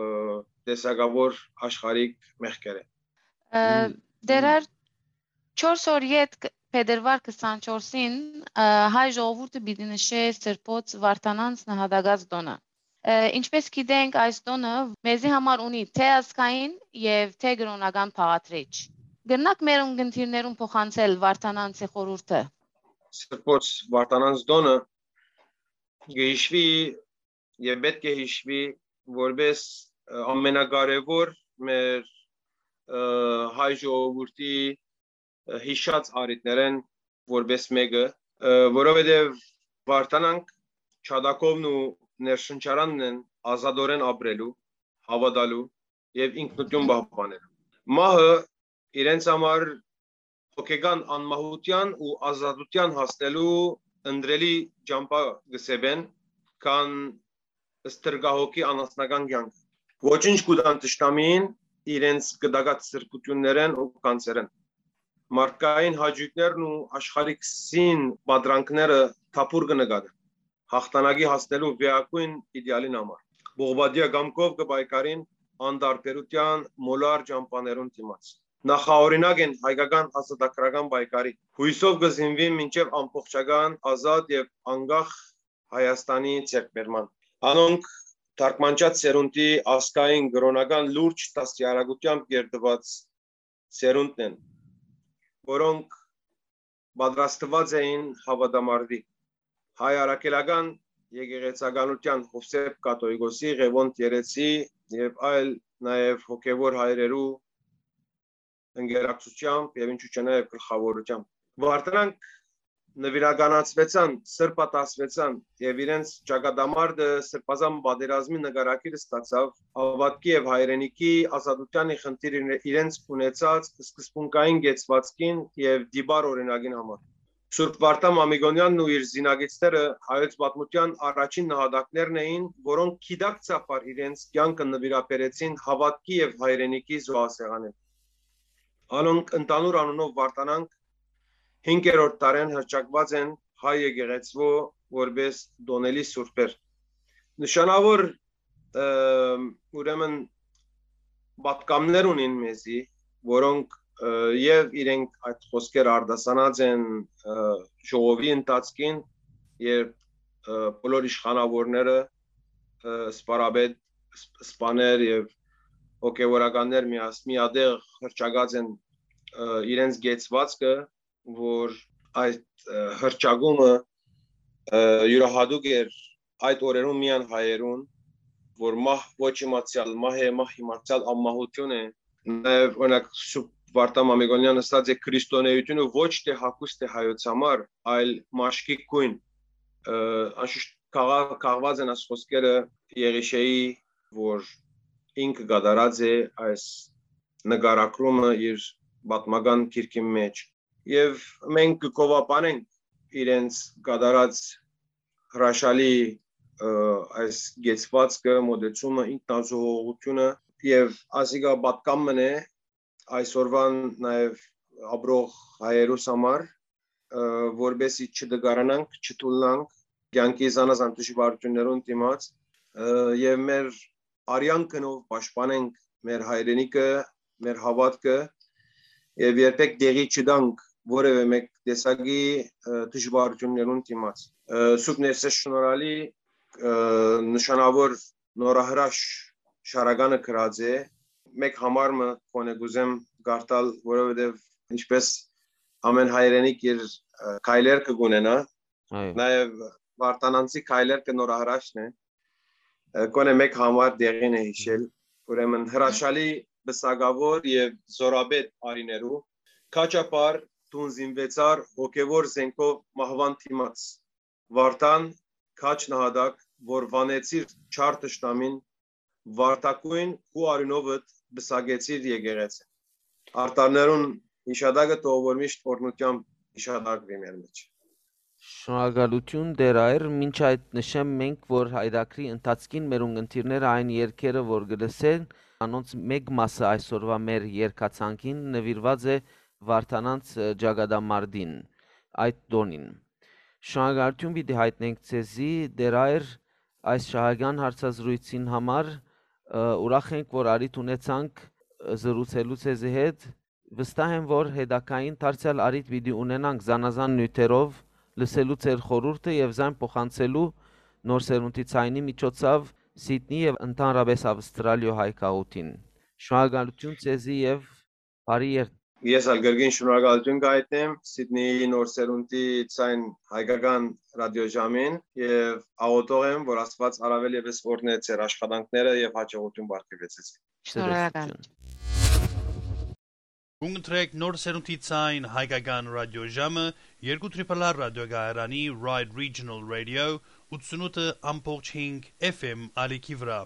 տեսակավոր աշխարհիկ մեղքերը։ Ը, Մ, դեռ մ- չորս օր յետ կ-, փետրվար քսանչորսին, ը, հայ ժողովուրդը պիտի նշէ Սրբոց Վարդանանց նահատակաց տօնը։ Ը, ինչպես գիտենք, այս տօնը մեզի համար ունի թէ ազգային եւ թէ կրօնական բաղադրիչ։ Կրնաք մեր ունկնդիրներուն փոխանցել Վարդանանցի խորհուրդը։ Սրբոց Վարդանանց տօնը կը հիշուի եւ պէտք է հիշուի որպես, ը, ամենակարեւոր մեր, ը, հայ ժողովուրդի, ը, յիշած առիթներէն որպես մէկը, ը, որովհետեւ Վարդանանք չադակովն ու ներշնչարանն են ազատօրեն ապրելու, հաւատալու եւ ինքնութիւն պահպանելու։ Մահը իրենց համար հոգեկան անմահութեան ու ազատութեան հասնելու ընտրելի ճամբայ կը սեպեն, քան ստրկահոգի անասնական կեանքը։ Ոչինչ կու տան թշնամիին, իրենց կտակած սրբութիւններէն ու գանձերէն։ Մարդկային հաճոյքներն ու աշխարհիկ սին պատրանքները թափուր կը նկատեն, հաղթանակի հասնելու վեհագոյն իդեալին համար։ Պողպատեայ կամքով կը պայքարին անտարբերութեան մոլար ճամբաներուն դիմաց։ Նախաօրինակ են հայկական ազատագրական պայքարի։ Յոյսով կը զինուին մինչեւ ամբողջական, ազատ եւ անկախ Հայաստանի ձեռքբերման։ Անոնք թարգմանչած սերունդի ազգային կրօնական լուրջ դաստիարակութեամբ կերտուած սերունդն են, որոնք պատրաստուած էին հաւատամարտի։ Հայ առաքելական եկեղեցականութեան Յովսէփ Կաթողիկոսի, Ղեւոնդ Երեցի եւ այլ, նաեւ հոգեւոր հայրերու ընկերակցութեամբ եւ ինչու՞ չէ նաեւ գլխաւորութեամբ։ Վարդանանք նուիրականացուեցան, սրբատասվեցան եւ իրենց ճակատամարտը սրբազան պատերազմի նկարագիր ստացաւ հաւատքի եւ հայրենիքի ազատութեան խնդիր իրենց ունեցած սկզբունքային կեցուածքին եւ տիպար օրինակին համար։ Սուրբ Վարդան Մամիկոնեանն ու իր զինակիցները հայոց պատմութեան առաջին նահատակներն էին, որոնք գիտակցաբար իրենց կեանքը նուիրաբերեցին հաւատքի եւ հայրենիքի զոհասեղանին։ Անոնք ընդհանուր անունով Վարդանանք հինգերորդ դարէն հռչակուած են հայ եկեղեցւոյ որպէս տօնելի սուրբեր։ Նշանաւոր, ը, ուրեմն, պատկամներ ունին մեզի, որոնք, ը, եւ իրենք այդ խոսքերը արտասանած են, ը, ժողովի ընթացքին, երբ, ը, բոլոր իշխանաւորները, ը, սպարապետ, սպ-, սպաներ եւ հոգեւորականներ միաս-, միատեղ հռչակած են, ը, իրենց կեցուածքը, որ այդ, ը, հռչակումը, ը, իւրահատուկ էր այդ օրերուն միայն հայերուն, որ մահ ոչ իմացեալ մահ է, մահ իմացեալ անմահութիւն է։ Նաեւ, օրինակ, Սուրբ Վարդան Մամիկոնեան ըսած է. «Քրիստոնէութիւնը ոչ թէ հագուստ է հայոց համար, այլ մաշկի գոյն»։ Ը, անշուշտ կաղ-, կաղված են այս խոսքերը Եղիշէի, որ ինքը կատարած է այս նկարագրումը իր պատմական գիրքին մէջ։ Եւ մենք կը գովաբանենք իրենց կատարած հրաշալի, ը, այս կեցուածքը, մոտեցումը, ինքնազոհողությունը, եւ ասիկա պատկան մըն է այսօրվան նաեւ ապրող հայերուս համար, ը, որպեսզի չտկարանանք, չթուլնանք, կեանքի զանազան դժուարութիւններուն դիմաց, ը, եւ մեր արեան գնով պաշտպանենք մեր հայրենիքը, մեր հաւատքը եւ երբեք տեղի չտանք որեւէ մէկ տեսակի, ը, դժուարութիւններուն դիմաց։ Ը, Սուրբ Ներսէս Շնորհալի, ը, նշանաւոր նորահրաշ շարականը գրած է։ Մէկ համար մը գոնե կ'ուզեմ կարդալ, որովհետեւ ինչպես ամեն հայրենիք իր, ը, քայլերգը կ'ունենայ, այո, նաեւ Վարդանանցի քայլերգը նորահրաշն է, ը, գոնե մէկ համար տեղին է յիշել։ Ուրեմն հրաշալի պսակաւոր եւ զօրապետ արիներու, քաչափառ դուն զինուեցար հոգեւոր զենքով մահուան դիմաց։ Վարդան, քաջ նահատակ, որ վանեցիր չար թշնամին, վարդագոյն քու արիւնովդ պսակեցիր եկեղեցին։ Արտարներուն յիշատակը թող որ միշտ օրհնութեամբ յիշատակուի մեր մէջ։ Շնորհակալութիւն, Տէր Այր, մինչ այդ նշեմ մենք, որ հայրագրի ընթացքին մեր ունգընտիրները այն երգերը, որ կը լսեն, անոնց մէկ մասը այսօրվա մեր երգացանկին նուիրուած է Վարդանանց, ը, ճակատամարտին, այդ տօնին։ Շնորհակալութիւն պիտի յայտնենք ձեզի, Տէր Այր, այս շահական հարցազրույցին համար, ը, ուրախ ենք, որ առիթ ունեցանք, ը, զրուցելու ձեզի հետ։ Վստահ եմ, որ հետագային դարձեալ առիթ պիտի ունենանք զանազան նիւթերով լսելու ձեր խորհուրդը եւ զայն փոխանցելու նոր սերունդի ձայնի միջոցով Սիդնի եւ ընդհանրապես Ավստրալիոյ հայ գաղութին։ Շնորհակալութիւն ձեզի եւ բարի երթ։ Ես ալ կրկին շնորհակալութիւն կայտնեմ Սիդնիի նոր սերունդի ձայն հայկական ռադիոժամին եւ աղօթող եմ, որ Աստուած առավել եւս օրհնէ ձեր աշխատանքները եւ հաջողութիւն պարգեւեցեք։ Շնորհակալ։ Կընտրեք նոր սերունդի ձայն հայկական ռադիոժամը երկու Triple R ռադիոկայարանի Ride Regional Radio ութսունութ ամբողջ հինգ F M ալիքի վրա։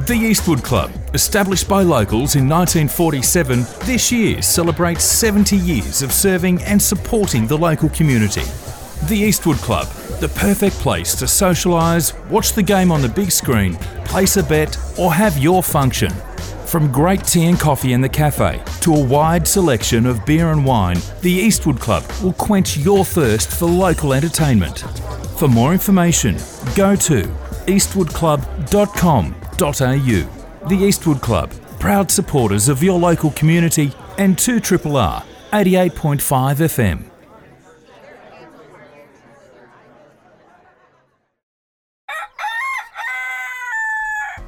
The Eastwood Club, established by locals in nineteen forty-seven, this year celebrates seventy years of serving and supporting the local community. The Eastwood Club, the perfect place to socialise, watch the game on the big screen, place a bet, or have your function. From great tea and coffee in the cafe to a wide selection of beer and wine, the Eastwood Club will quench your thirst for local entertainment. For more information, go to eastwood club dot com dot a u. The Eastwood Club, proud supporters of your local community and two triple R eighty-eight point five F M.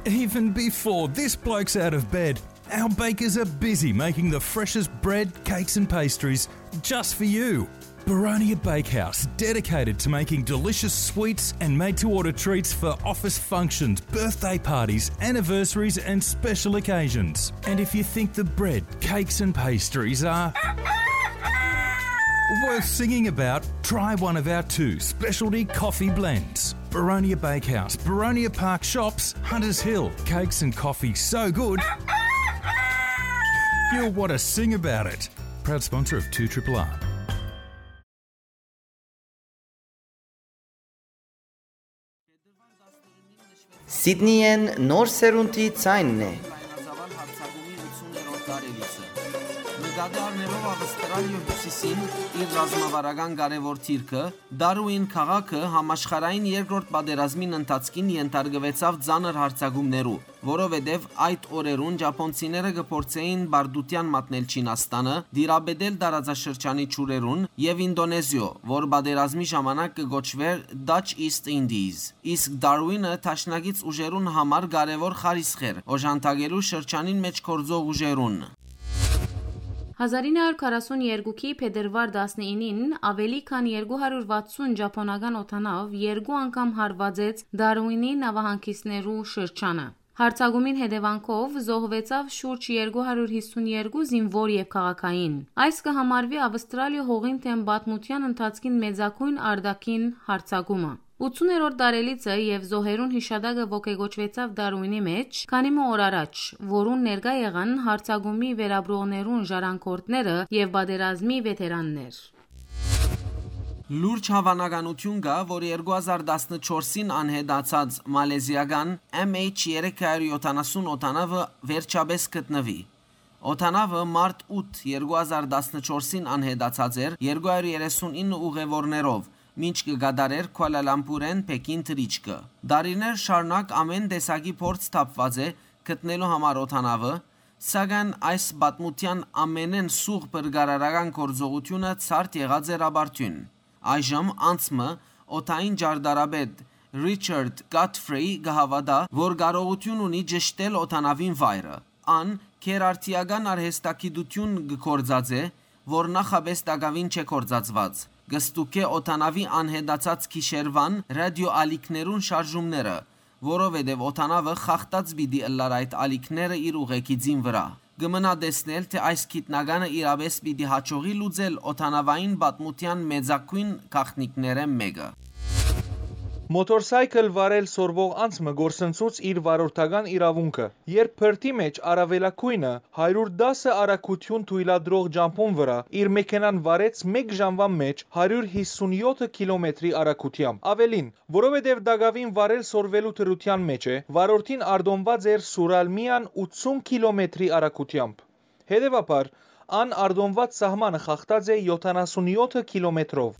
Even before this bloke's out of bed, our bakers are busy making the freshest bread, cakes, and pastries just for you. Baronia Bakehouse, dedicated to making delicious sweets and made to order treats for office functions, birthday parties, anniversaries, and special occasions. And if you think the bread, cakes, and pastries are worth singing about, try one of our two specialty coffee blends. Baronia Bakehouse, Baronia Park Shops, Hunters Hill. Cakes and coffee so good, you'll want to sing about it. Proud sponsor of two triple R. Սիդնիեն նոր սերունդի ձայնն է։ Լայնածավալ հարցակումի ութսուններորդ տարելիցը։ Նկատի առնելով Ավստրալիոյ հիւսիսին իր ռազմավարական կարեւոր դիրքը, Դարուին քաղաքը համաշխարհային երկրորդ պատերազմին ընթացքին ենթարկուեցաւ ծանր հարցակումներու, որովհետեւ այդ օրերուն ճապոնցիները կը փորձէին բարդութեան մատնել Չինաստանը, դիրապետել տարածաշրջանի ջուրերուն եւ Ինդոնեզիոյ, որ պատերազմի ժամանակ կը կոչուէր Dutch East Indies։ Իսկ Դարուինը դաշնակից ուժերուն համար կարեւոր խարիսխ էր օժանդակելու շրջանին մէջ գործող ուժերուն։ Հազար ինը հարյուր քառասուն երկուքի փետրուար տասնինին ավելի քան երկու հարյուր վաթսուն ճապոնական օդանաւ երկու անգամ հարվածեց Դարուինի նավահանգիստներու շրջանը։ Հարցակումին հետեւանքով զոհուեցաւ շուրջ երկու հարյուր հիսուն երկու զինուոր եւ քաղաքային։ Այս կը համարուի Ավստրալիոյ հողին դէմ պատմութեան ընթացքին մեծագոյն արտաքին հարցակումը։ Ութսուններորդ տարելիցը եւ զոհերուն յիշատակը ոգեկոչուեցաւ Դարուինի մէջ, քանի մը օր առաջ, որուն ներկայ եղան հարցակումի վերապրողներուն ժառանգորդները եւ պատերազմի վեթերաններ։ Լուրջ հաւանականութիւն կայ, որ երկու հազար տասնչորսին անհետացած մալեզիական M H երեք հարյուր յոթանասուն օդանաւը վերջապէս գտնուի։ Օդանաւը մարտ ութ, երկու հազար տասնչորսին անհետացած էր երկու հարյուր երեսուն ինը ուղեւորներով, մինչ կը կատարէր Քուալալամպուրէն Փեքին թռիչքը։ Տարիներ շարունակ ամէն տեսակի փորձ թափուած է գտնելու համար օդանաւը, սակայն այս պատմութեան ամէնէն սուղ փրկարարական գործողութիւնը ցարդ եղած էր ապարդիւն։ Այժմ անցմը օդային ճարտարապետ Ռիչարդ Գոթֆրի կը հաւատայ, որ կարողութիւն ունի ճշդել օդանաւին վայրը։ Ան քերարդիական արհեստագիտութիւն կը գործածէ, որ նախապէս տակաւին չէ գործածուած։ Կը ստուգէ օդանաւի անհետացած գիշերուան ռադիոալիքներուն շարժումները, որովհետեւ օդանաւը խախտած պիտի ըլլար այդ ալիքները իր ուղեկիցին վրայ։ Կը մնայ տեսնել, թէ այս գիտնականը իրապէս պիտի յաջողի լուծել օդանաւային պատմութեան մեծագոյն գաղտնիքներէն մէկը։ Մոթորսայքլ վարել սորվող անձ մը կորսնցուց իր վարորդական իրաւունքը, երբ բրդի մէջ առաւելագոյնը հարիւր տասը արագութիւն թոյլատրող ճամբուն վրայ իր մեքենան վարեց մէկ ժամուան մէջ հարիւր հիսուն յոթ կիլոմետրի արագութեամբ։ Աւելին, որովհետեւ տակաւին վարել սորվելու դրութեան մէջ է, վարորդին արտոնուած էր սուրալ միայն ութսուն կիլոմետրի արագութեամբ։ Հետեւաբար, ան արտոնուած սահմանը խախտած է յոթանասուն յոթ կիլոմետրով։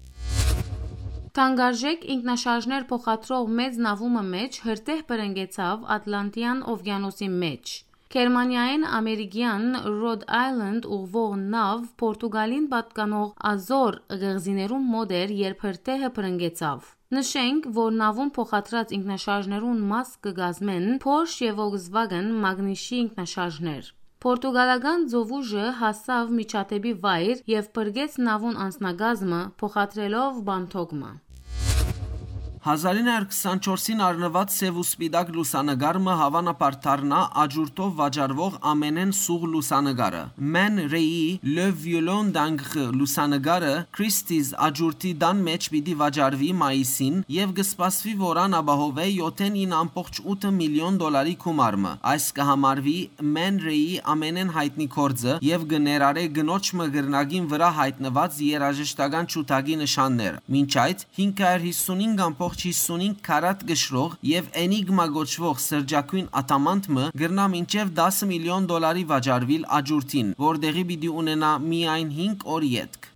Թանկարժեք ինքնաշարժներ փոխադրող մեծ նաւումը մէջ հրդեհ բռնկեցաւ Ատլանտյան օվկիանոսի մէջ։ Գերմանիայէն ամերիկեան Rhode Island ուղղուող նաւ Պորտուգալին պատկանող Ազոր կղզիներուն մօտ էր, երբ հրդեհը բռնկեցաւ։ Նշենք, որ նաւուն փոխադրած ինքնաշարժներուն մաս կը կազմեն Porsche եւ Volkswagen Magnich-ի ինքնաշարժներ։ Պորտուգալական ծովուժը հասաւ միջադեպի վայր եւ փրկեց նաւուն անձնակազմը, փոխադրելով բանթոկը։ Հազարին հարյուր քսանչորսին առնուած սեւ ու սպիտակ լուսանկար մը հաւանաբար դառնայ աճուրդով վաճառուող ամենէն սուղ լուսանկարը։ Man Ray-ի Le Violon d'Ancre լուսանկարը Christie's աճուրդի տան մէջ պիտի վաճառուի մայիսին եւ կը սպասուի, որ ան ապահովէ յոթ ին ամբողջ ութ միլիոն դոլարի գումար մը։ Այս կը համարուի Man Ray-ի ամենէն յայտնի գործը եւ կը ներառէ կնոջ մը կռնակին վրայ յայտնուած երաժշտական ջութակի նշաններ։ Մինչ այդ, հինգ հարիւր յիսուն հինգ ամբողջ յիսուն հինգ քարատ կշռող եւ Enigma կոչուող սրճագոյն ադամանդ մը կրնայ մինչեւ տասը միլիոն դոլարի վաճառուիլ աճուրդին, որ տեղի պիտի ունենայ միայն հինգ օր ետք։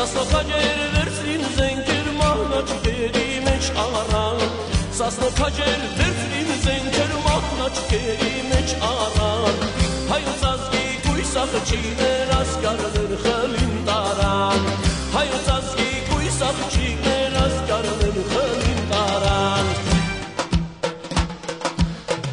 Սասնոքաճեր վերցրին զենքեր, մահնաճկերի մէջ առան։ Սասնոքաճեր վերցրին զենքեր, մահնաճկերի մէջ առան։ Հայոց ազգի կոյս աղջիկներ, ասկարներ խլին տարան։ Հայոց ազգի կոյս աղջիկներ, ասկարներ խլին տարան։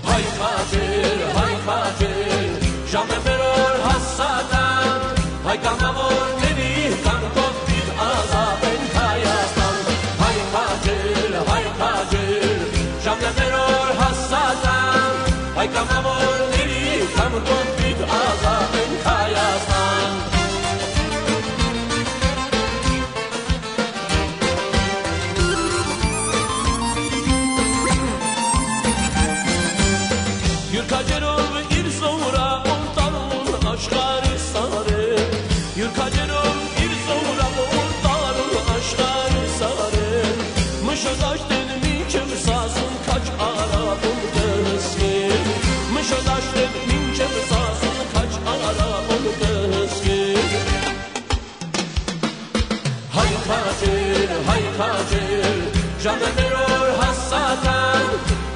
Հայ քաջեր, հայ քաջեր, ժամը մեր օր հասական, հայ կամավորների կամքով պիտի ազատենք Հայաստան։ Հայ քաջեր, հայ քաջեր, ժամը մեր օր հասական, հայ կամավորների կամքով պիտի ազատենք Հայաստան։ Յուր քաջերով իր զորակուն տարուն աշխարհի սարեր, յուր քաջերով իր զորակուն տարուն աշխարհի սարեր, մշտաշտեն մինչև սասուն քաջ արաբուն կհսկեր, մշտաշտեն մինչև սասուն քաջ արաբուն կհսկեր։ Հայ քաջեր, հայ քաջեր, ժամը մեր օր հասական,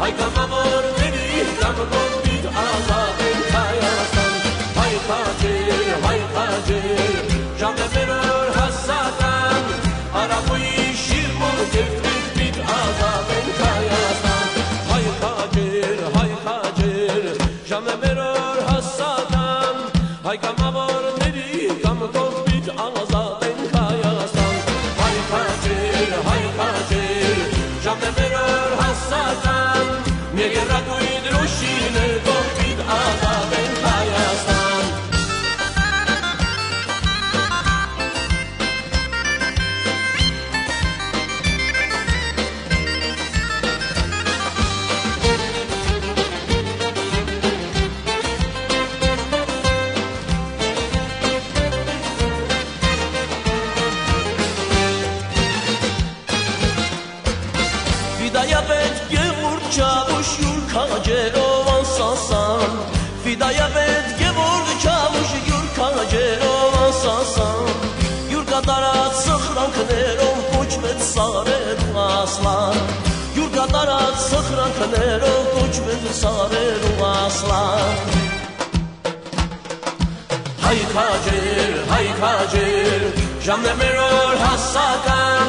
հայ կամավորների կամքով պիտի ազատենք Հայաստան։ Հայ քաջեր, հայ քաջեր, ժամը մեր օր հասական, արաբոյի շիրմուն կերտմիտ պիտի ազատենք Հայաստան։ Հայ քաջեր, հայ քաջեր, ժամը մեր օր հասական, հայ կամավորների կամքով պիտի ազատենք Հայաստան։ Հայ քաջեր, հայ քաջեր, ժամը մեր օր հասական, մեր եռագույն դրոշիներ կողպիտ ազատենք Հայաստան։ Ֆիդայապետ Գեորգ Չավուշ յուր քաջերով անսասան, Ֆիդայապետ Գեորգ Չավուշ յուր քաջերով անսասան, յուր կատարած սխրանքներով կոչվեց սարերու ասլան, յուր կատարած սխրանքներով կոչվեց սարերու ասլան։ Հայ քաջեր, հայ քաջեր, ժամն է մեր օր հասական,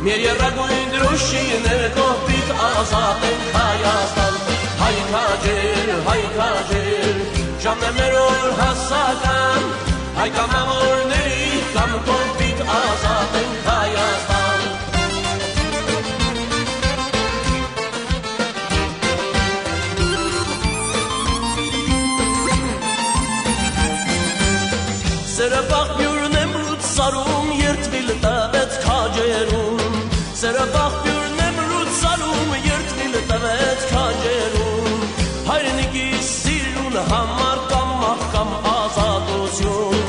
մեր եռագույն դրոշիներ կողպիտ ազատենք Հայաստան։ Հայ քաջեր, հայ քաջեր, ժամն է մեր օր հասական, հայ կամավորների կամ կողպիտ ազատ ենք Հայաստան։ Սերը պաղպիւրն եմ լուծարում, երդվիլ տվեց քաջերուն։ Սերը պաղպիւրն եմ լուծարում, երդվիլ տվեց քաջերուն։ Հայրենիքի սիրուն համար կամ մահ կամ ազատություն։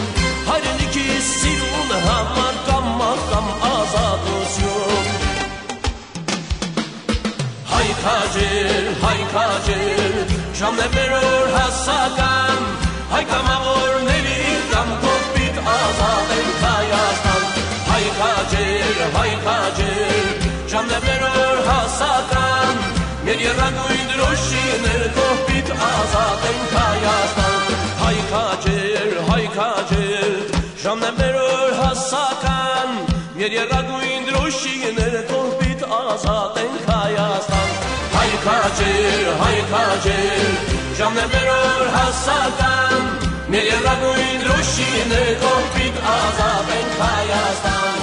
Հայրենիքի սիրուն համար կամ մահ կամ ազատություն։ Հայ քաջեր, հայ քաջեր, ժամն է մեր օր հասական, հայ կամավորների կամ կողպիտ ազատ ենք Հայաստան։ Հայ քաջեր, հայ քաջեր, ժամն է մեր օր հասական, մեր եռագույն դրոշի ներքո պիտ ազատ ենք Հայաստան։ Հայ քաջեր, հայ քաջեր, ժամն է մեր օր հասական, մեր եռագույն դրոշի ներքո պիտ ազատ ենք Հայաստան։ Հայ քաջեր, հայ քաջեր, ժամն է մեր օր հասական, մեր եռագույն դրոշի ներքո պիտ ազատ ենք Հայաստան։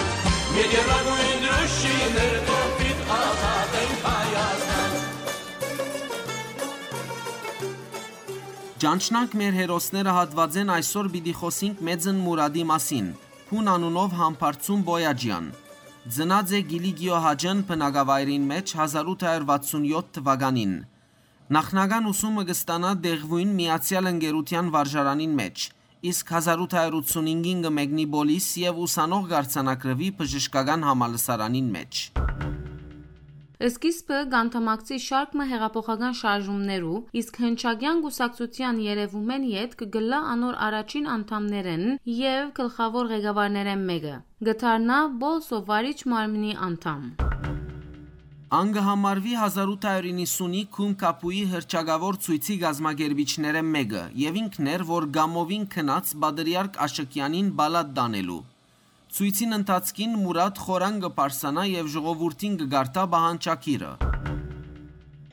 Մեր եռագույն դրոշի ներքո պիտ ազատ ենք Հայաստան։ Ճանչնանք մեր հերոսները հատուածէն այսօր պիտի խօսինք Մեծն Մուրադի մասին, Փուն անունով Համբարձում Պոյաջեան։ Ծնած է Կիլիկիո Հաճն բնակավայրին մէջ հազար ութ հարյուր վաթսուն յոթ թուականին։ Նախնական ուսումը կը ստանայ Դեղուին միացեալ ընկերութեան վարժարանին մէջ, իսկ հազար ութ հարյուր ութսունհինգին կը մեկնի Պոլիս եւ ուսանող կ'արձանագրուի բժշկական համալսարանին մէջ։ Սկիզբը կ'անդամակցի շարք մը հեղափոխական շարժումներու, իսկ հնչակեան կուսակցութեան երեւումէն ետք կ'ըլլայ անոր առաջին անդամներէն եւ գլխաւոր ղեկավարներէն մէկը։ Կը դառնայ Պոլսոյ վարիչ մարմնի անդամ։ Ան կը համարուի հազար ութ հարյուր իննսունի Քում Քապուի հռչակաւոր ցոյցի կազմակերպիչներէն մէկը եւ ինքն էր, որ Կամովին գնաց Պատրիարք Աշըկեանին պալատ տանելու։ Ցոյցին ընթացքին Մուրատ խորան կը պարսանայ եւ ժողովուրդին կը կարդայ պահանջագիրը։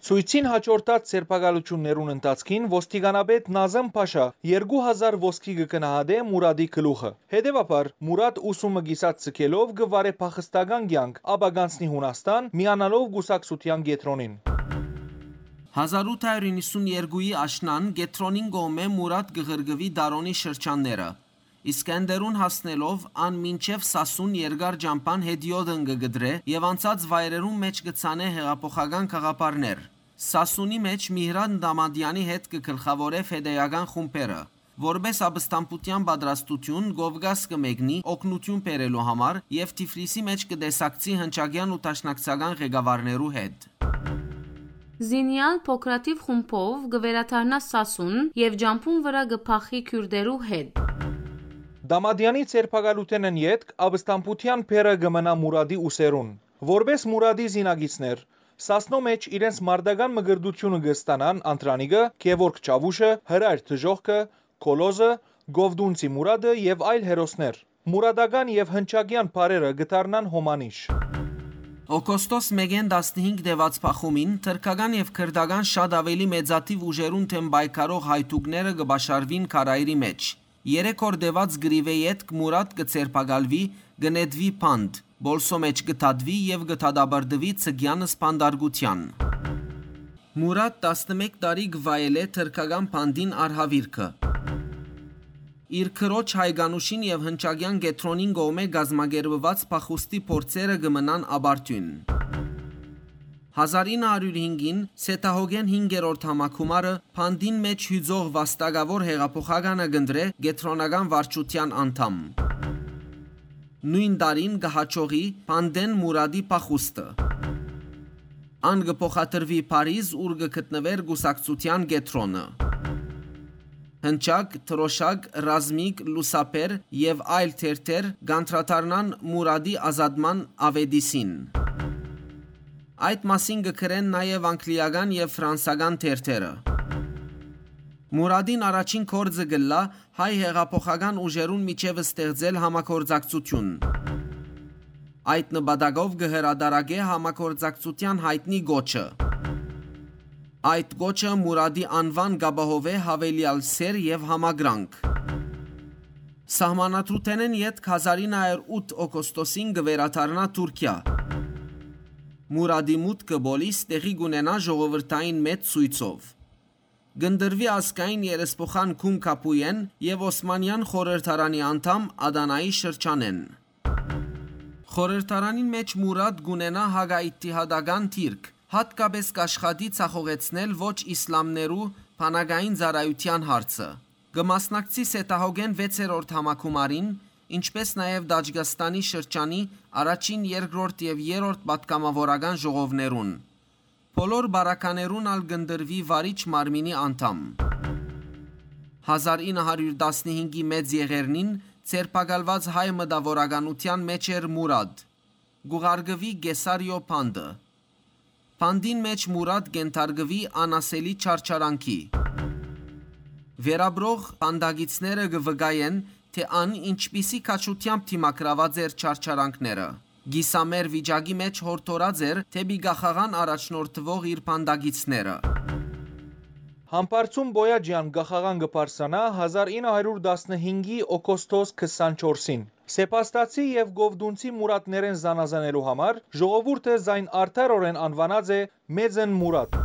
Ցոյցին յաջորդած ձերբակալութիւններուն ընթացքին ոստիկանապետ Նազմ Փաշա երկու հազար ոսկի կը գնահատէ Մուրատի գլուխը։ Հետեւաբար, Մուրատ ուսումը կիսատ ձգելով կը վարէ փախստական կեանք, ապա կ'անցնի Յունաստան, միանալով կուսակցութեան կեդրոնին։ Հազար ութ հարյուր իննսուն երկուի աշնան կեդրոնին կողմէ Մուրատ կը ղրկուի Դարոնի շրջանները։ Իսկ Էնդերուն հասնելով, ան մինչեւ Սասուն երկար ճամբան հետիոտն կը կտրէ եւ անցած վայրերուն մէջ կը ցանէ հեղափոխական գաղափարներ։ Սասունի մէջ Միհրան Դամադեանի հետ կը գլխաւորէ ֆեդեական խումբերը։ Որպէս ապստամբութեան պատրաստութիւն Կովկաս կը մեկնի օգնութիւն բերելու համար եւ Թիֆլիսի մէջ կը տեսակցի հնչակեան ու դաշնակցական ղեկավարներու հետ։ Զինեալ փոքրաթիւ խումբով կը վերադառնայ Սասուն եւ ճամբուն վրայ կը փախի քիւրտերու հետ։ Դամադեանի ձերբակալութենէն ետք ապստամբութեան բեռը կը մնայ Մուրատի ուսերուն։ Որպէս Մուրատի զինակիցներ, Սասնոյ մէջ իրենց մարտական մկրտութիւնը կը ստանան Անդրանիկը, Գեորգ Չաւուշը, Հրայր Դժոխքը, Քոլոզը, Կովտունցի Մուրատը եւ այլ հերոսներ։ Մուրատական եւ հնչակեան բառերը կը դառնան հոմանիշ։ Օգոստոս մէկէն տասնհինգ տեւած փախումին թրքական եւ քրտական շատ աւելի մեծաթիւ ուժերուն դէմ պայքարող հայդուկները կը պաշարուին Քարայրի մէջ։ Երեք օր տեւած կռիւէ ետք Մուրատ կը ձերբակալուի, կը նետուի Փանդ, Պոլսոյ մէջ կը դատուի եւ կը դատապարտուի Ցկեան սպանդարկութեան։ Մուրատ տասնմէկ տարի կը վայելէ թրքական Փանդին արհաւիրքը։ Իր քրոջ Հայկանուշին եւ հնչակեան կեդրոնին կողմէ կազմակերպուած փախուստի փորձերը կը մնան ապարդիւն։ Հազար ինը հարիւր հինգին Սեդահոգէն հինգերորդ համագումարը Փանդին մէջ յուծող վաստակաւոր հեղափոխականը կ'ընտրէ կեդրոնական վարչութեան անդամ։ Նոյն տարին կը յաջողի Փանդէն Մուրատի փախուստը։ Ան կը փոխադրուի Փարիզ, ուր կը գտնուէր կուսակցութեան կեդրոնը։ Հնչակ, Դրոշակ, Ռազմիկ, Լուսաբեր եւ այլ թերթեր կ'անդրադառնան Մուրատի ազատման աւետիսին։ Այդ մասին կը գրեն նաեւ անգլիական եւ ֆրանսական թերթերը։ Մուրատին առաջին գործը կ'ըլլայ հայ հեղափոխական ուժերուն միջեւ ստեղծել համագործակցութիւն։ Այդ նպատակով կը հրատարակէ համագործակցութեան յայտնի կոչը։ Այդ կոչը Մուրադի անուան կ'ապահովէ յաւելեալ սէր եւ համակրանք։ Սահմանադրութենէն ետք հազար ինը հարիւր ութ օգոստոսին կը վերադառնայ Թուրքիա։ Մուրադի մուտքը պոլիս տեղի կ'ունենայ ժողովրդային մեծ ցոյցով։ Կ'ընտրուի ազգային երեսփոխան Քուն Քապուեն եւ Օսմանեան խորհրդարանի անդամ Ադանայի շրջանէն։ Խորհրդարանին մէջ Մուրադ կ'ունենայ հակաիթիհադական դիրք, յատկապէս կ'աշխատի ձախողեցնել ոչ իսլամներու բանակային ծառայութեան հարցը։ Կը մասնակցի Սետահոգէն վեցերորդ համագումարին, ինչպէս նաեւ Տաճկաստանի շրջանի առաջին, երկրորդ եւ երրորդ պատգամաւորական ժողովներուն։ Բոլոր պարագաներուն ալ կ'ընտրուի վարիչ մարմինի անդամ։ Հազար ինը հարիւր տասնհինգի մեծ եղեռնին ձերբակալուած հայ մտաւորականութեան մէջ էր Մուրադ։ Կ'ուղարկուի Կեսարիոյ բանտը։ Բանտին մէջ Մուրադ կ'ենթարկուի անասելի չարչարանքի։ Վերապրող բանտակիցները կը վկայեն, թէ ան ինչպիսի քաջութեամբ դիմագրաւած էր չարչարանքները։ Կիսամեռ վիճակի մէջ յորդորած էր դէպի կախաղան առաջնորդուող իր բանտակիցները։ Համբարձում Պոյաճեան կախաղան կը բարձրանայ հազար ինը հարիւր տասնհինգի օգոստոս քսանչորսին։ Սեպաստացի եւ կովտունցի Մուրատներէն զանազանելու համար ժողովուրդը զայն արդարօրէն անուանած է Մեծն Մուրատ։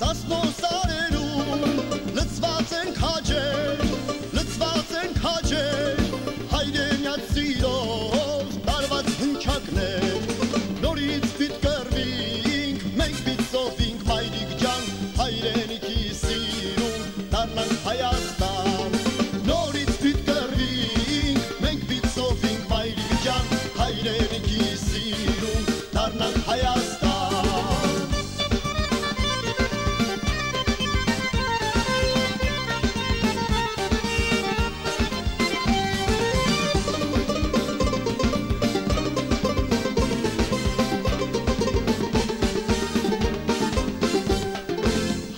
Սասնոյ սարերուն լցուած են քաջեր, լցուած են քաջեր, հայրենեաց սիրով տարուած հնչակներ։ Նորից պիտի կռուինք, մենք պիտի սովինք, մայրիկ ջան, հայրենիքի սիրուն դառնանք Հայաստան։ Նորից պիտի կռուինք, մենք պիտի սովինք, մայրիկ ջան, հայրենիքի սիրուն դառնանք Հայաստան։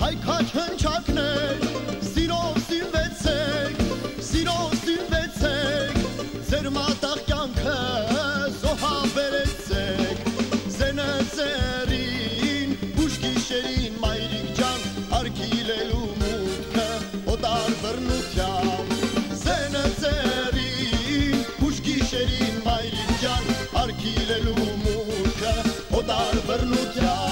Հայ քաջ հնչակներ, սիրով սիրվեցեք, սիրով սիրվեցեք, ձեր մատաղ կեանքը զոհաբերեցեք, զենը ձեռին, ուշ գիշերին, մայրիկ ջան, արգիլելու մուտքը օտար բռնութեան, զենը ձեռին, ուշ գիշերին, մայրիկ ջան, արգիլելու մուտքը օտար բռնութեան։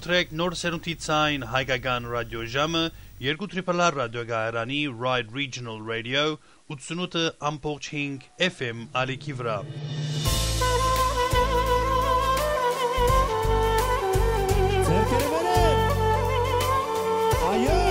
Մաղթեք նոր սերունդի ցայն հայկական ռադիոժամը, երկու Triple R ռադիոկայարանի Ride Regional Radio, ութսունութ ամբողջ հինգ F M ալիքի վրայ։ Ձեռքերը վեր է։ Այո։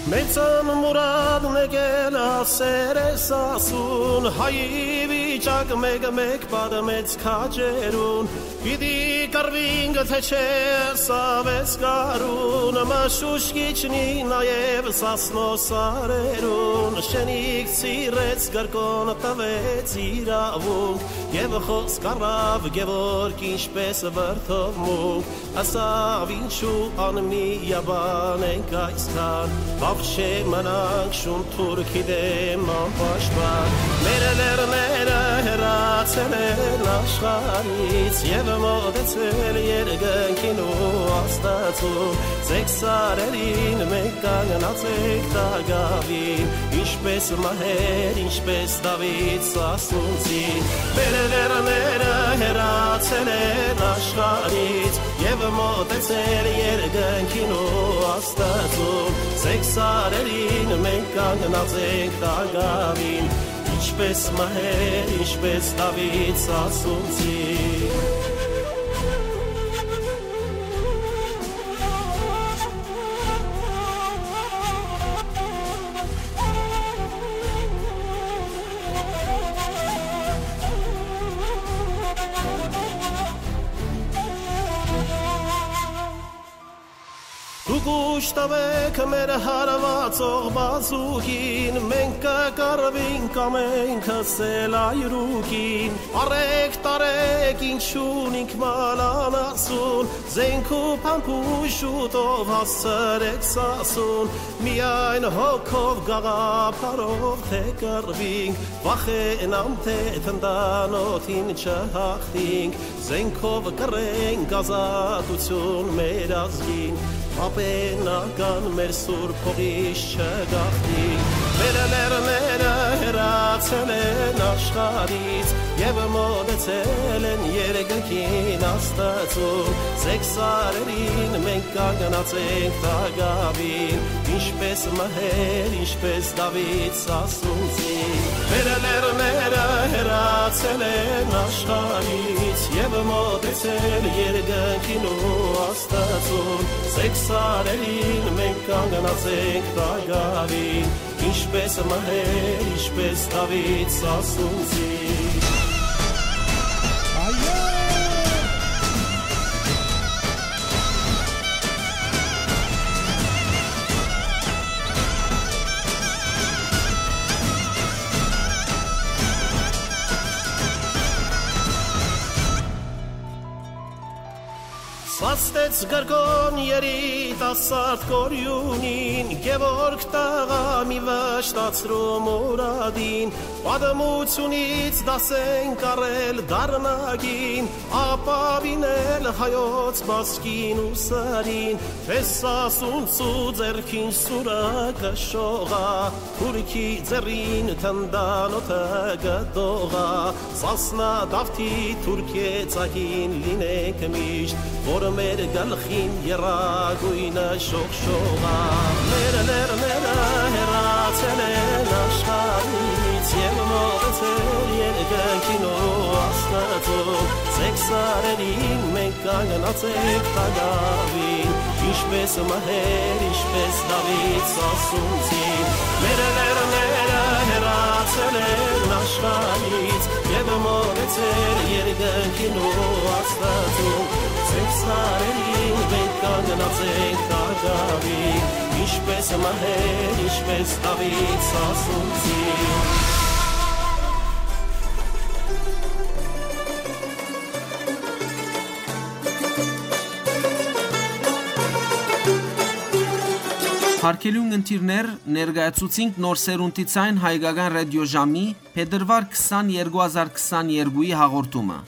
Մեծան մուրադն եկել ասեր ես ասուն, հայի վիճակ մէկ-մէկ պատմեց քաջերուն, պիտի կռվինք, թե չէ, սա վեց գարուն, մշուշ կիջնի նաեւ Սասնոյ սարերուն, շենիկ Սիրեց կրկոն տվեց իրաւունք, եւ խօսք առաւ Գեորգ ինչպես վրդովմունք, ասաւ. «Ինչու անմիաբան ենք այսքան, բաւ չէ մնանք շուն թուրքի դէմ անպաշտպան։ Մեր լեռները հեռացել են աշխարհից, եւ մոտեցել երկնքին ու Աստծուն։ Ձեր սարերին մենք կանգնած ենք տակաւին, ինչպես մահեր, ինչպես Դաւիթ սասունցին։ Մեր լեռները հեռացել են աշխարհից, եւ մոտեցել երկնքին ու Աստծուն։ Ձեր սարերին մենք կանգնած ենք տակաւին, ինչպես մահեր, ինչպես Դաւիթ սասունցին»։ Դուք ուժ տուէք մեր հարուածող բազուկին, մենք կը կռուինք ամենքս էլ այրուկին։ Արեք, տարեք, ինչ ունինք մալանասուն, զենք ու փամփուշտով հասցրեք Սասուն, միայն հոգով, գաղափարով թե կռվինք, վախենամ, թե թնդանօթին չհաղթինք, զենքով կրենք ազատություն մեր ազգին, պապենական մեր սուրբ հողից չգաղթինք։ Մեր լեռները հեռացել են աշխարհից եւ մոտեցել են երկնքին Աստծուն։ Ձեր սարերին մենք կանգնած ենք տակաւին, ինչպես մահեր, ինչպես Դաւիթ սասունցի։ Մեր լեռները հեռացել են աշխարհից եւ մոտեցել երկնքին ու Աստծուն։ Ձեր սարերին մենք կանգնած ենք տակաւին, ինչպես մահեր, ինչպես Դաւիթ սասունցի։ Այո։ Սաստեց կրկոն երիտասարդ կորիւնին, Գեորգ տղայ, մի վշտացրու մուրադին, պատմութիւնից դաս ենք առել դարնակին, ապաւինել հայոց մազկին ու սրին, թէ Սասունցու ձեռքին սուրը կը շողայ, թուրքի ձեռին թնդանօթը կը դողայ, Սասնա Դաւթի թուրքեզակին լինենք միշտ, որ մեր գլխին եռագոյնը շողշողայ։ Մեր լեռները հեռացել են աշխարհից եւ մոտեցել երկնքին ու Աստծուն։ Ձեր սարերին մենք կանգնած ենք տակաւին, ինչպես մահեր, ինչպես Դաւիթ սասունցի։ Մեր լեռները հեռացել են աշխարհից եւ մոտեցել երկնքին ու Աստծուն։ Ձեր սարերին մենք կանգնած ենք տակաւին, ինչպես մահեր, ինչպես Դաւիթ սասունցի։ Արգելի ունգընտիրներ, ներկայացուցինք Նոր Սերունդի Ձայն հայկական ռադիոժամի փետրուար քսան, երկու հազար քսաներկուի հաղորդումը։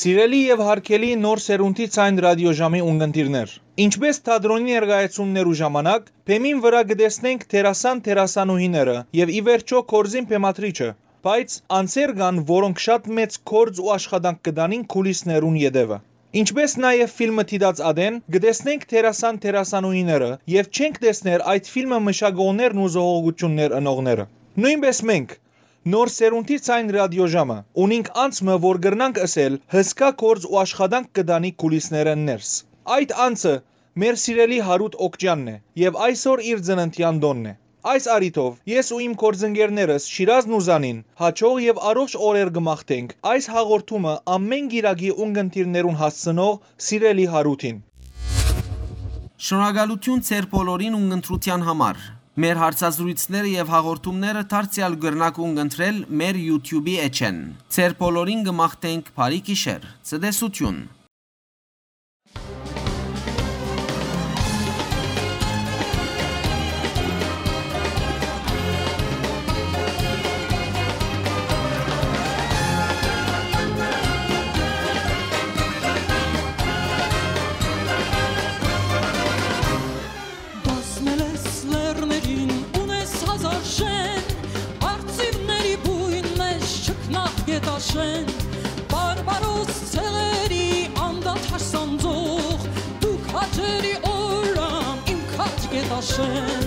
Սիրելի եւ յարգելի Նոր Սերունդի Ձայն ռադիոժամի ունգընտիրներ, ինչպէս թատրոնի ներկայացումներու ժամանակ, բեմին վրայ կը տեսնենք դերասան-դերասանուհիները եւ ի վերջոյ գործին բեմադրիչը, բայց անձեր կան, որոնք շատ մեծ գործ ու աշխատանք կը տանին քուլիսներուն ետեւը։ Ինչպէս նաեւ ֆիլմը դիտած ատեն, կը տեսնենք դերասան-դերասանուհիները եւ չենք տեսներ այդ ֆիլմը մշակողներն ու զոհողութիւններ ընողները։ Նոյնպէս մենք, Նոր Սերունդի Ձայն ռադիոժամը, ունինք անձ մը, որ կրնանք ըսել հսկայ գործ ու աշխատանք կը տանի քուլիսներէն ներս։ Այդ անձը մեր սիրելի Յարութ Օքճեանն է եւ այսօր իր ծննդեան տօնն է։ Այս առիթով ես ու իմ գործընկերներս Շիրազն ու Զանին յաջող եւ առողջ օրեր կը մաղթենք այս հաղորդումը ամէն կիրակի ունգընտիրներուն հասցնող սիրելի Յարութին։ Շնորհակալութիւն ձեր բոլորին ունգընտրութեան համար։ Մեր հարցազրոյցները եւ հաղորդումները դարձեալ կրնաք ունգընտրել մեր YouTube-ի էջէն։ Ձեր բոլորին կը մաղթենք բարի գիշեր, ցտեսութիւն։ Բազմել ես լեռներին, ունես հազար շեն, արծիվների բույն մէջ չքնաղ գետաշեն, բարբարոս ցեղերի անդադար սանձող, դուք հաճելի օրրան իմ քաջ գետաշեն,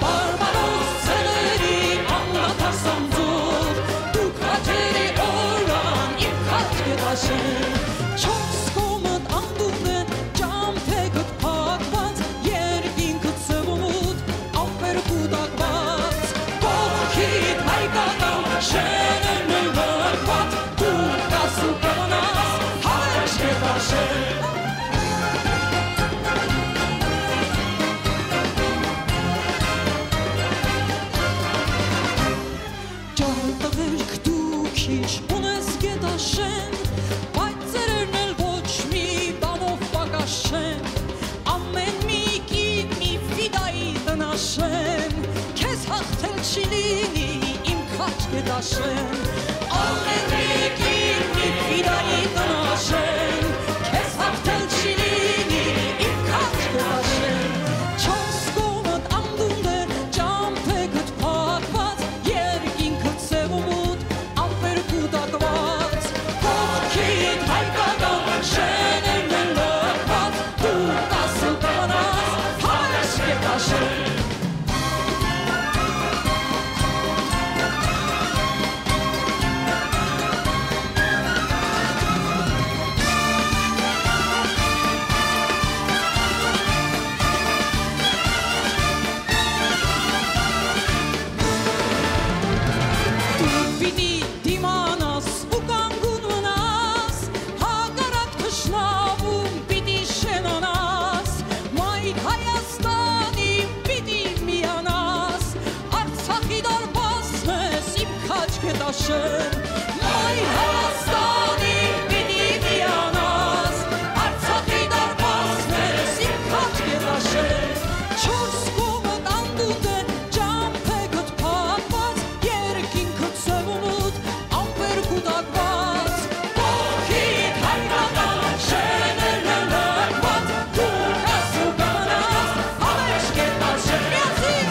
բարբարոս ցեղերի անդադար սանձող, դուք հաճելի օրրան իմ քաջ գետաշեն, չորս կողմդ անդունդ է, ճամբեքդ փակված, երկինքդ սեւումուտ, ամպեր կուտակված, կողքիդ հայկական շէնն է լքված, դու կաս ու կմնաս Հայոց գետաշեն։ Ճարդղերք դու քիչ ունես գետաշեն, բայց ծերերն էլ ոչ մի բանով պակաս չեն։ Ամէն մի կին մի ֆիդայի տնաշեն, քեզ հաղթել չի լինի իմ քաջ գետաշեն։ Ամէն մի կին մի ֆիդայի տնաշեն, քեզ հաղթել չի լինի իմ քաջ գետաշեն։ Չորս կողմդ անդունդ է, ճամբեքդ փակված, երկինքդ սեւումուտ, ամպեր կուտակված, կողքիդ հայկական շէնն է լքված, դու կաս ու կմնաս Հայոց գետաշեն։ Դու պիտի դիմանաս ու կանգուն մնաս, հակառակ թշնամուն պիտի շենանաս, մայր Հայաստանի պիտի միանաս, Արցախի դարպասն ես իմ քաջ գետաշեն, մայր Հայաստանի պիտի միանաս, Արցախի դարպասն ես իմ քաջ գետաշեն, չորս կողմդ անդունդ է, ճամբեքդ փակված, երկինքդ սեւումուտ, ամպեր կուտակված, կողքիդ հայկական շէնն է լքված, դու կաս ու կմնաս Հայոց գետաշեն։ Միացի՛ր։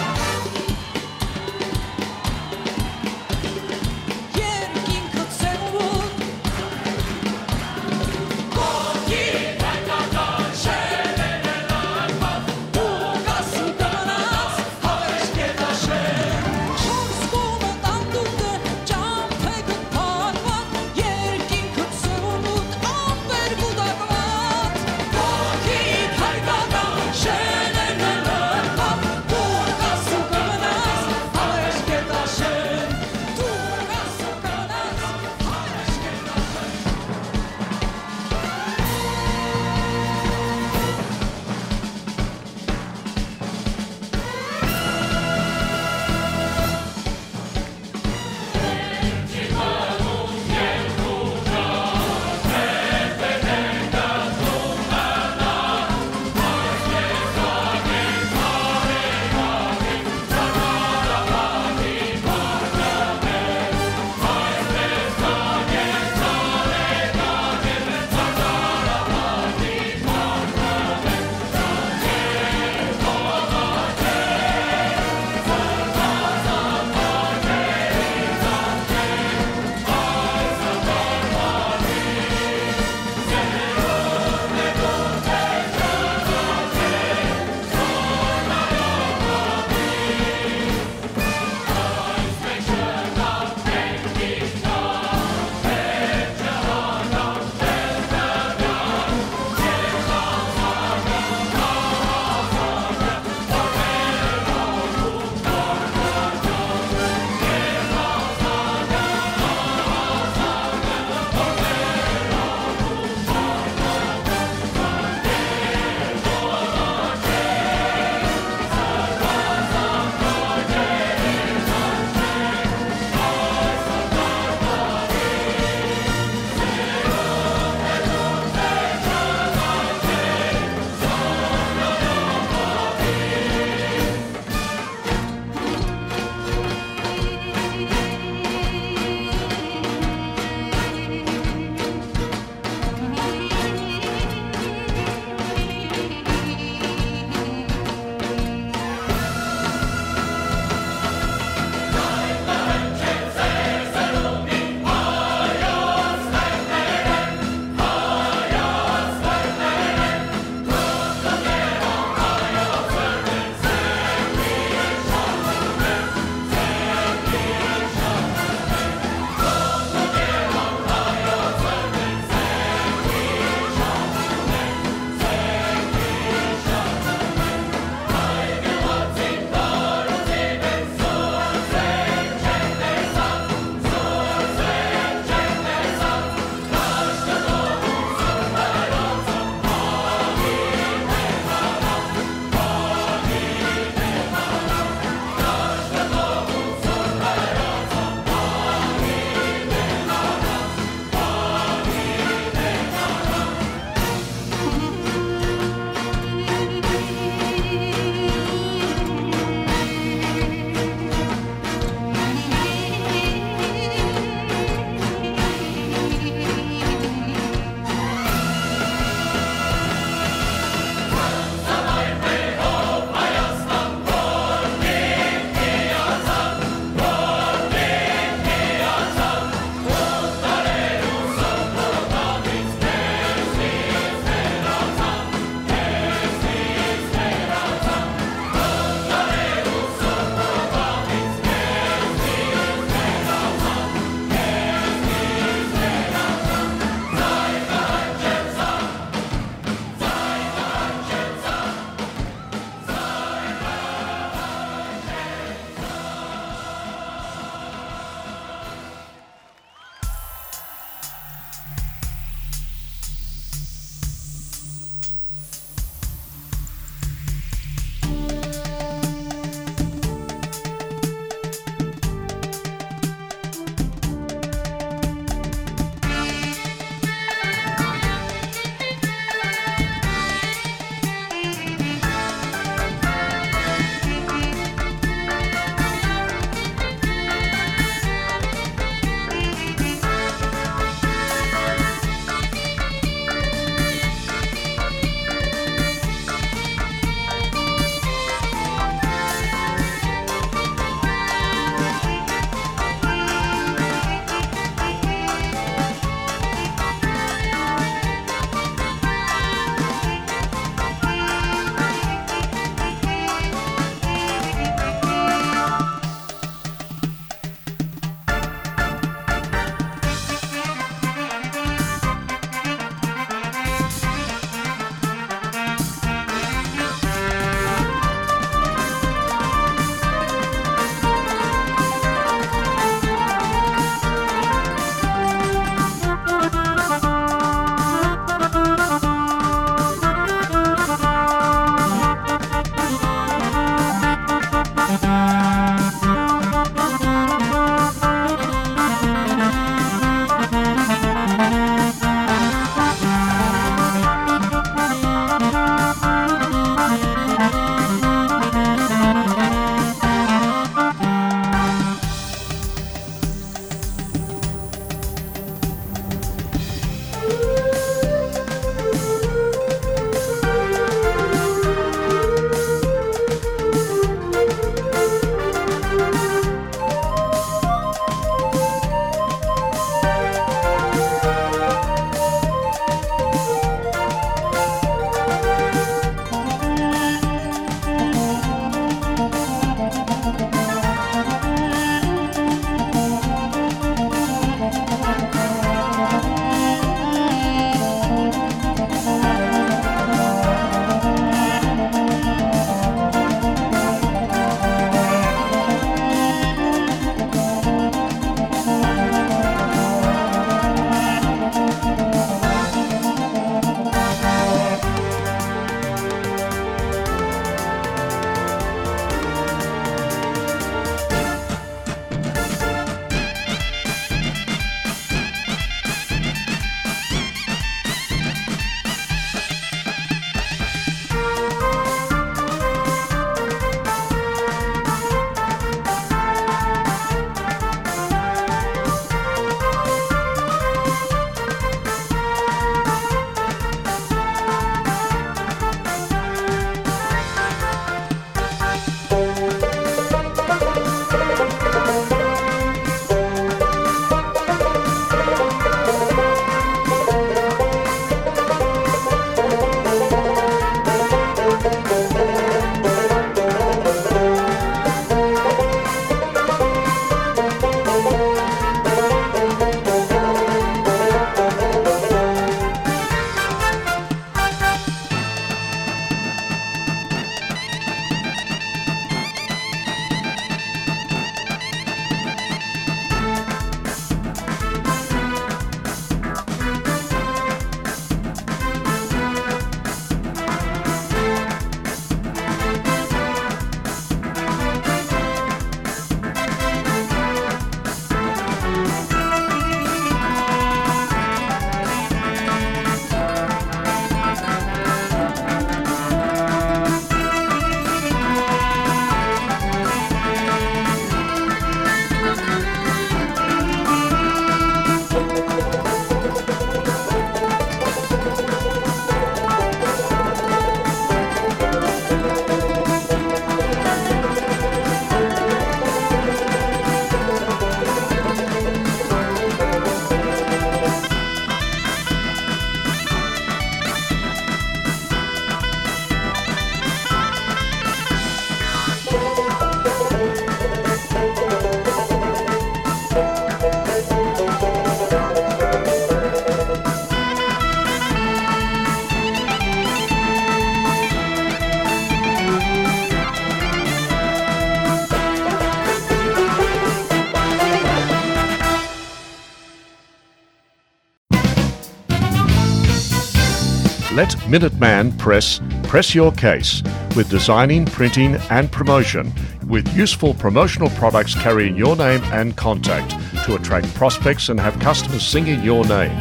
Let Minuteman Press press your case with designing, printing, and promotion, with useful promotional products carrying your name and contact to attract prospects and have customers singing your name,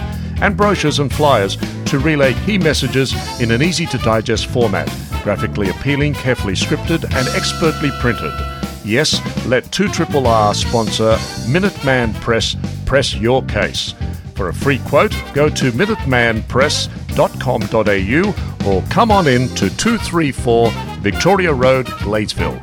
and brochures and flyers to relay key messages in an easy to digest format, graphically appealing, carefully scripted, and expertly printed. Yes, let two triple R sponsor Minuteman Press press your case. For a free quote, go to minuteman press dot com dot a u or come on in to two three four Victoria Road, Gladesville.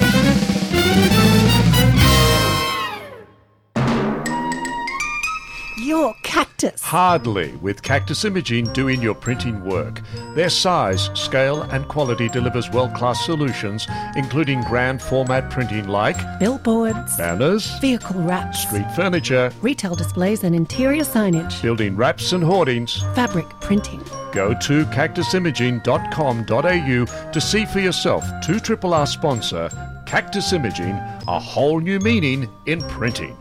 Your cactus. Hardly, with Cactus Imaging doing your printing work. Their size, scale, and quality delivers world-class solutions, including grand format printing like billboards, banners, vehicle wraps, street furniture, retail displays and interior signage, building wraps and hoardings, fabric printing. Go to cactus imaging dot com dot a u to see for yourself two triple R sponsor Cactus Imaging, a whole new meaning in printing.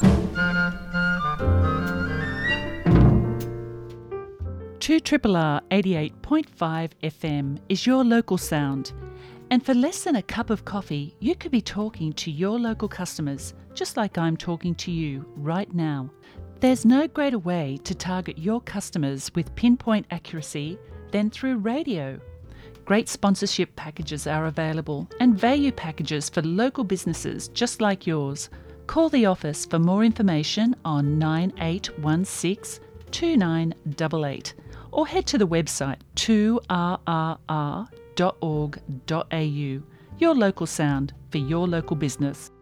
Two triple R eighty-eight point five F M is your local sound. And for less than a cup of coffee, you could be talking to your local customers, just like I'm talking to you right now. There's no greater way to target your customers with pinpoint accuracy than through radio. Great sponsorship packages are available and value packages for local businesses just like yours. Call the office for more information on nine eight one six two nine eight eight or head to the website two R R R dot org dot A U. Your local sound for your local business.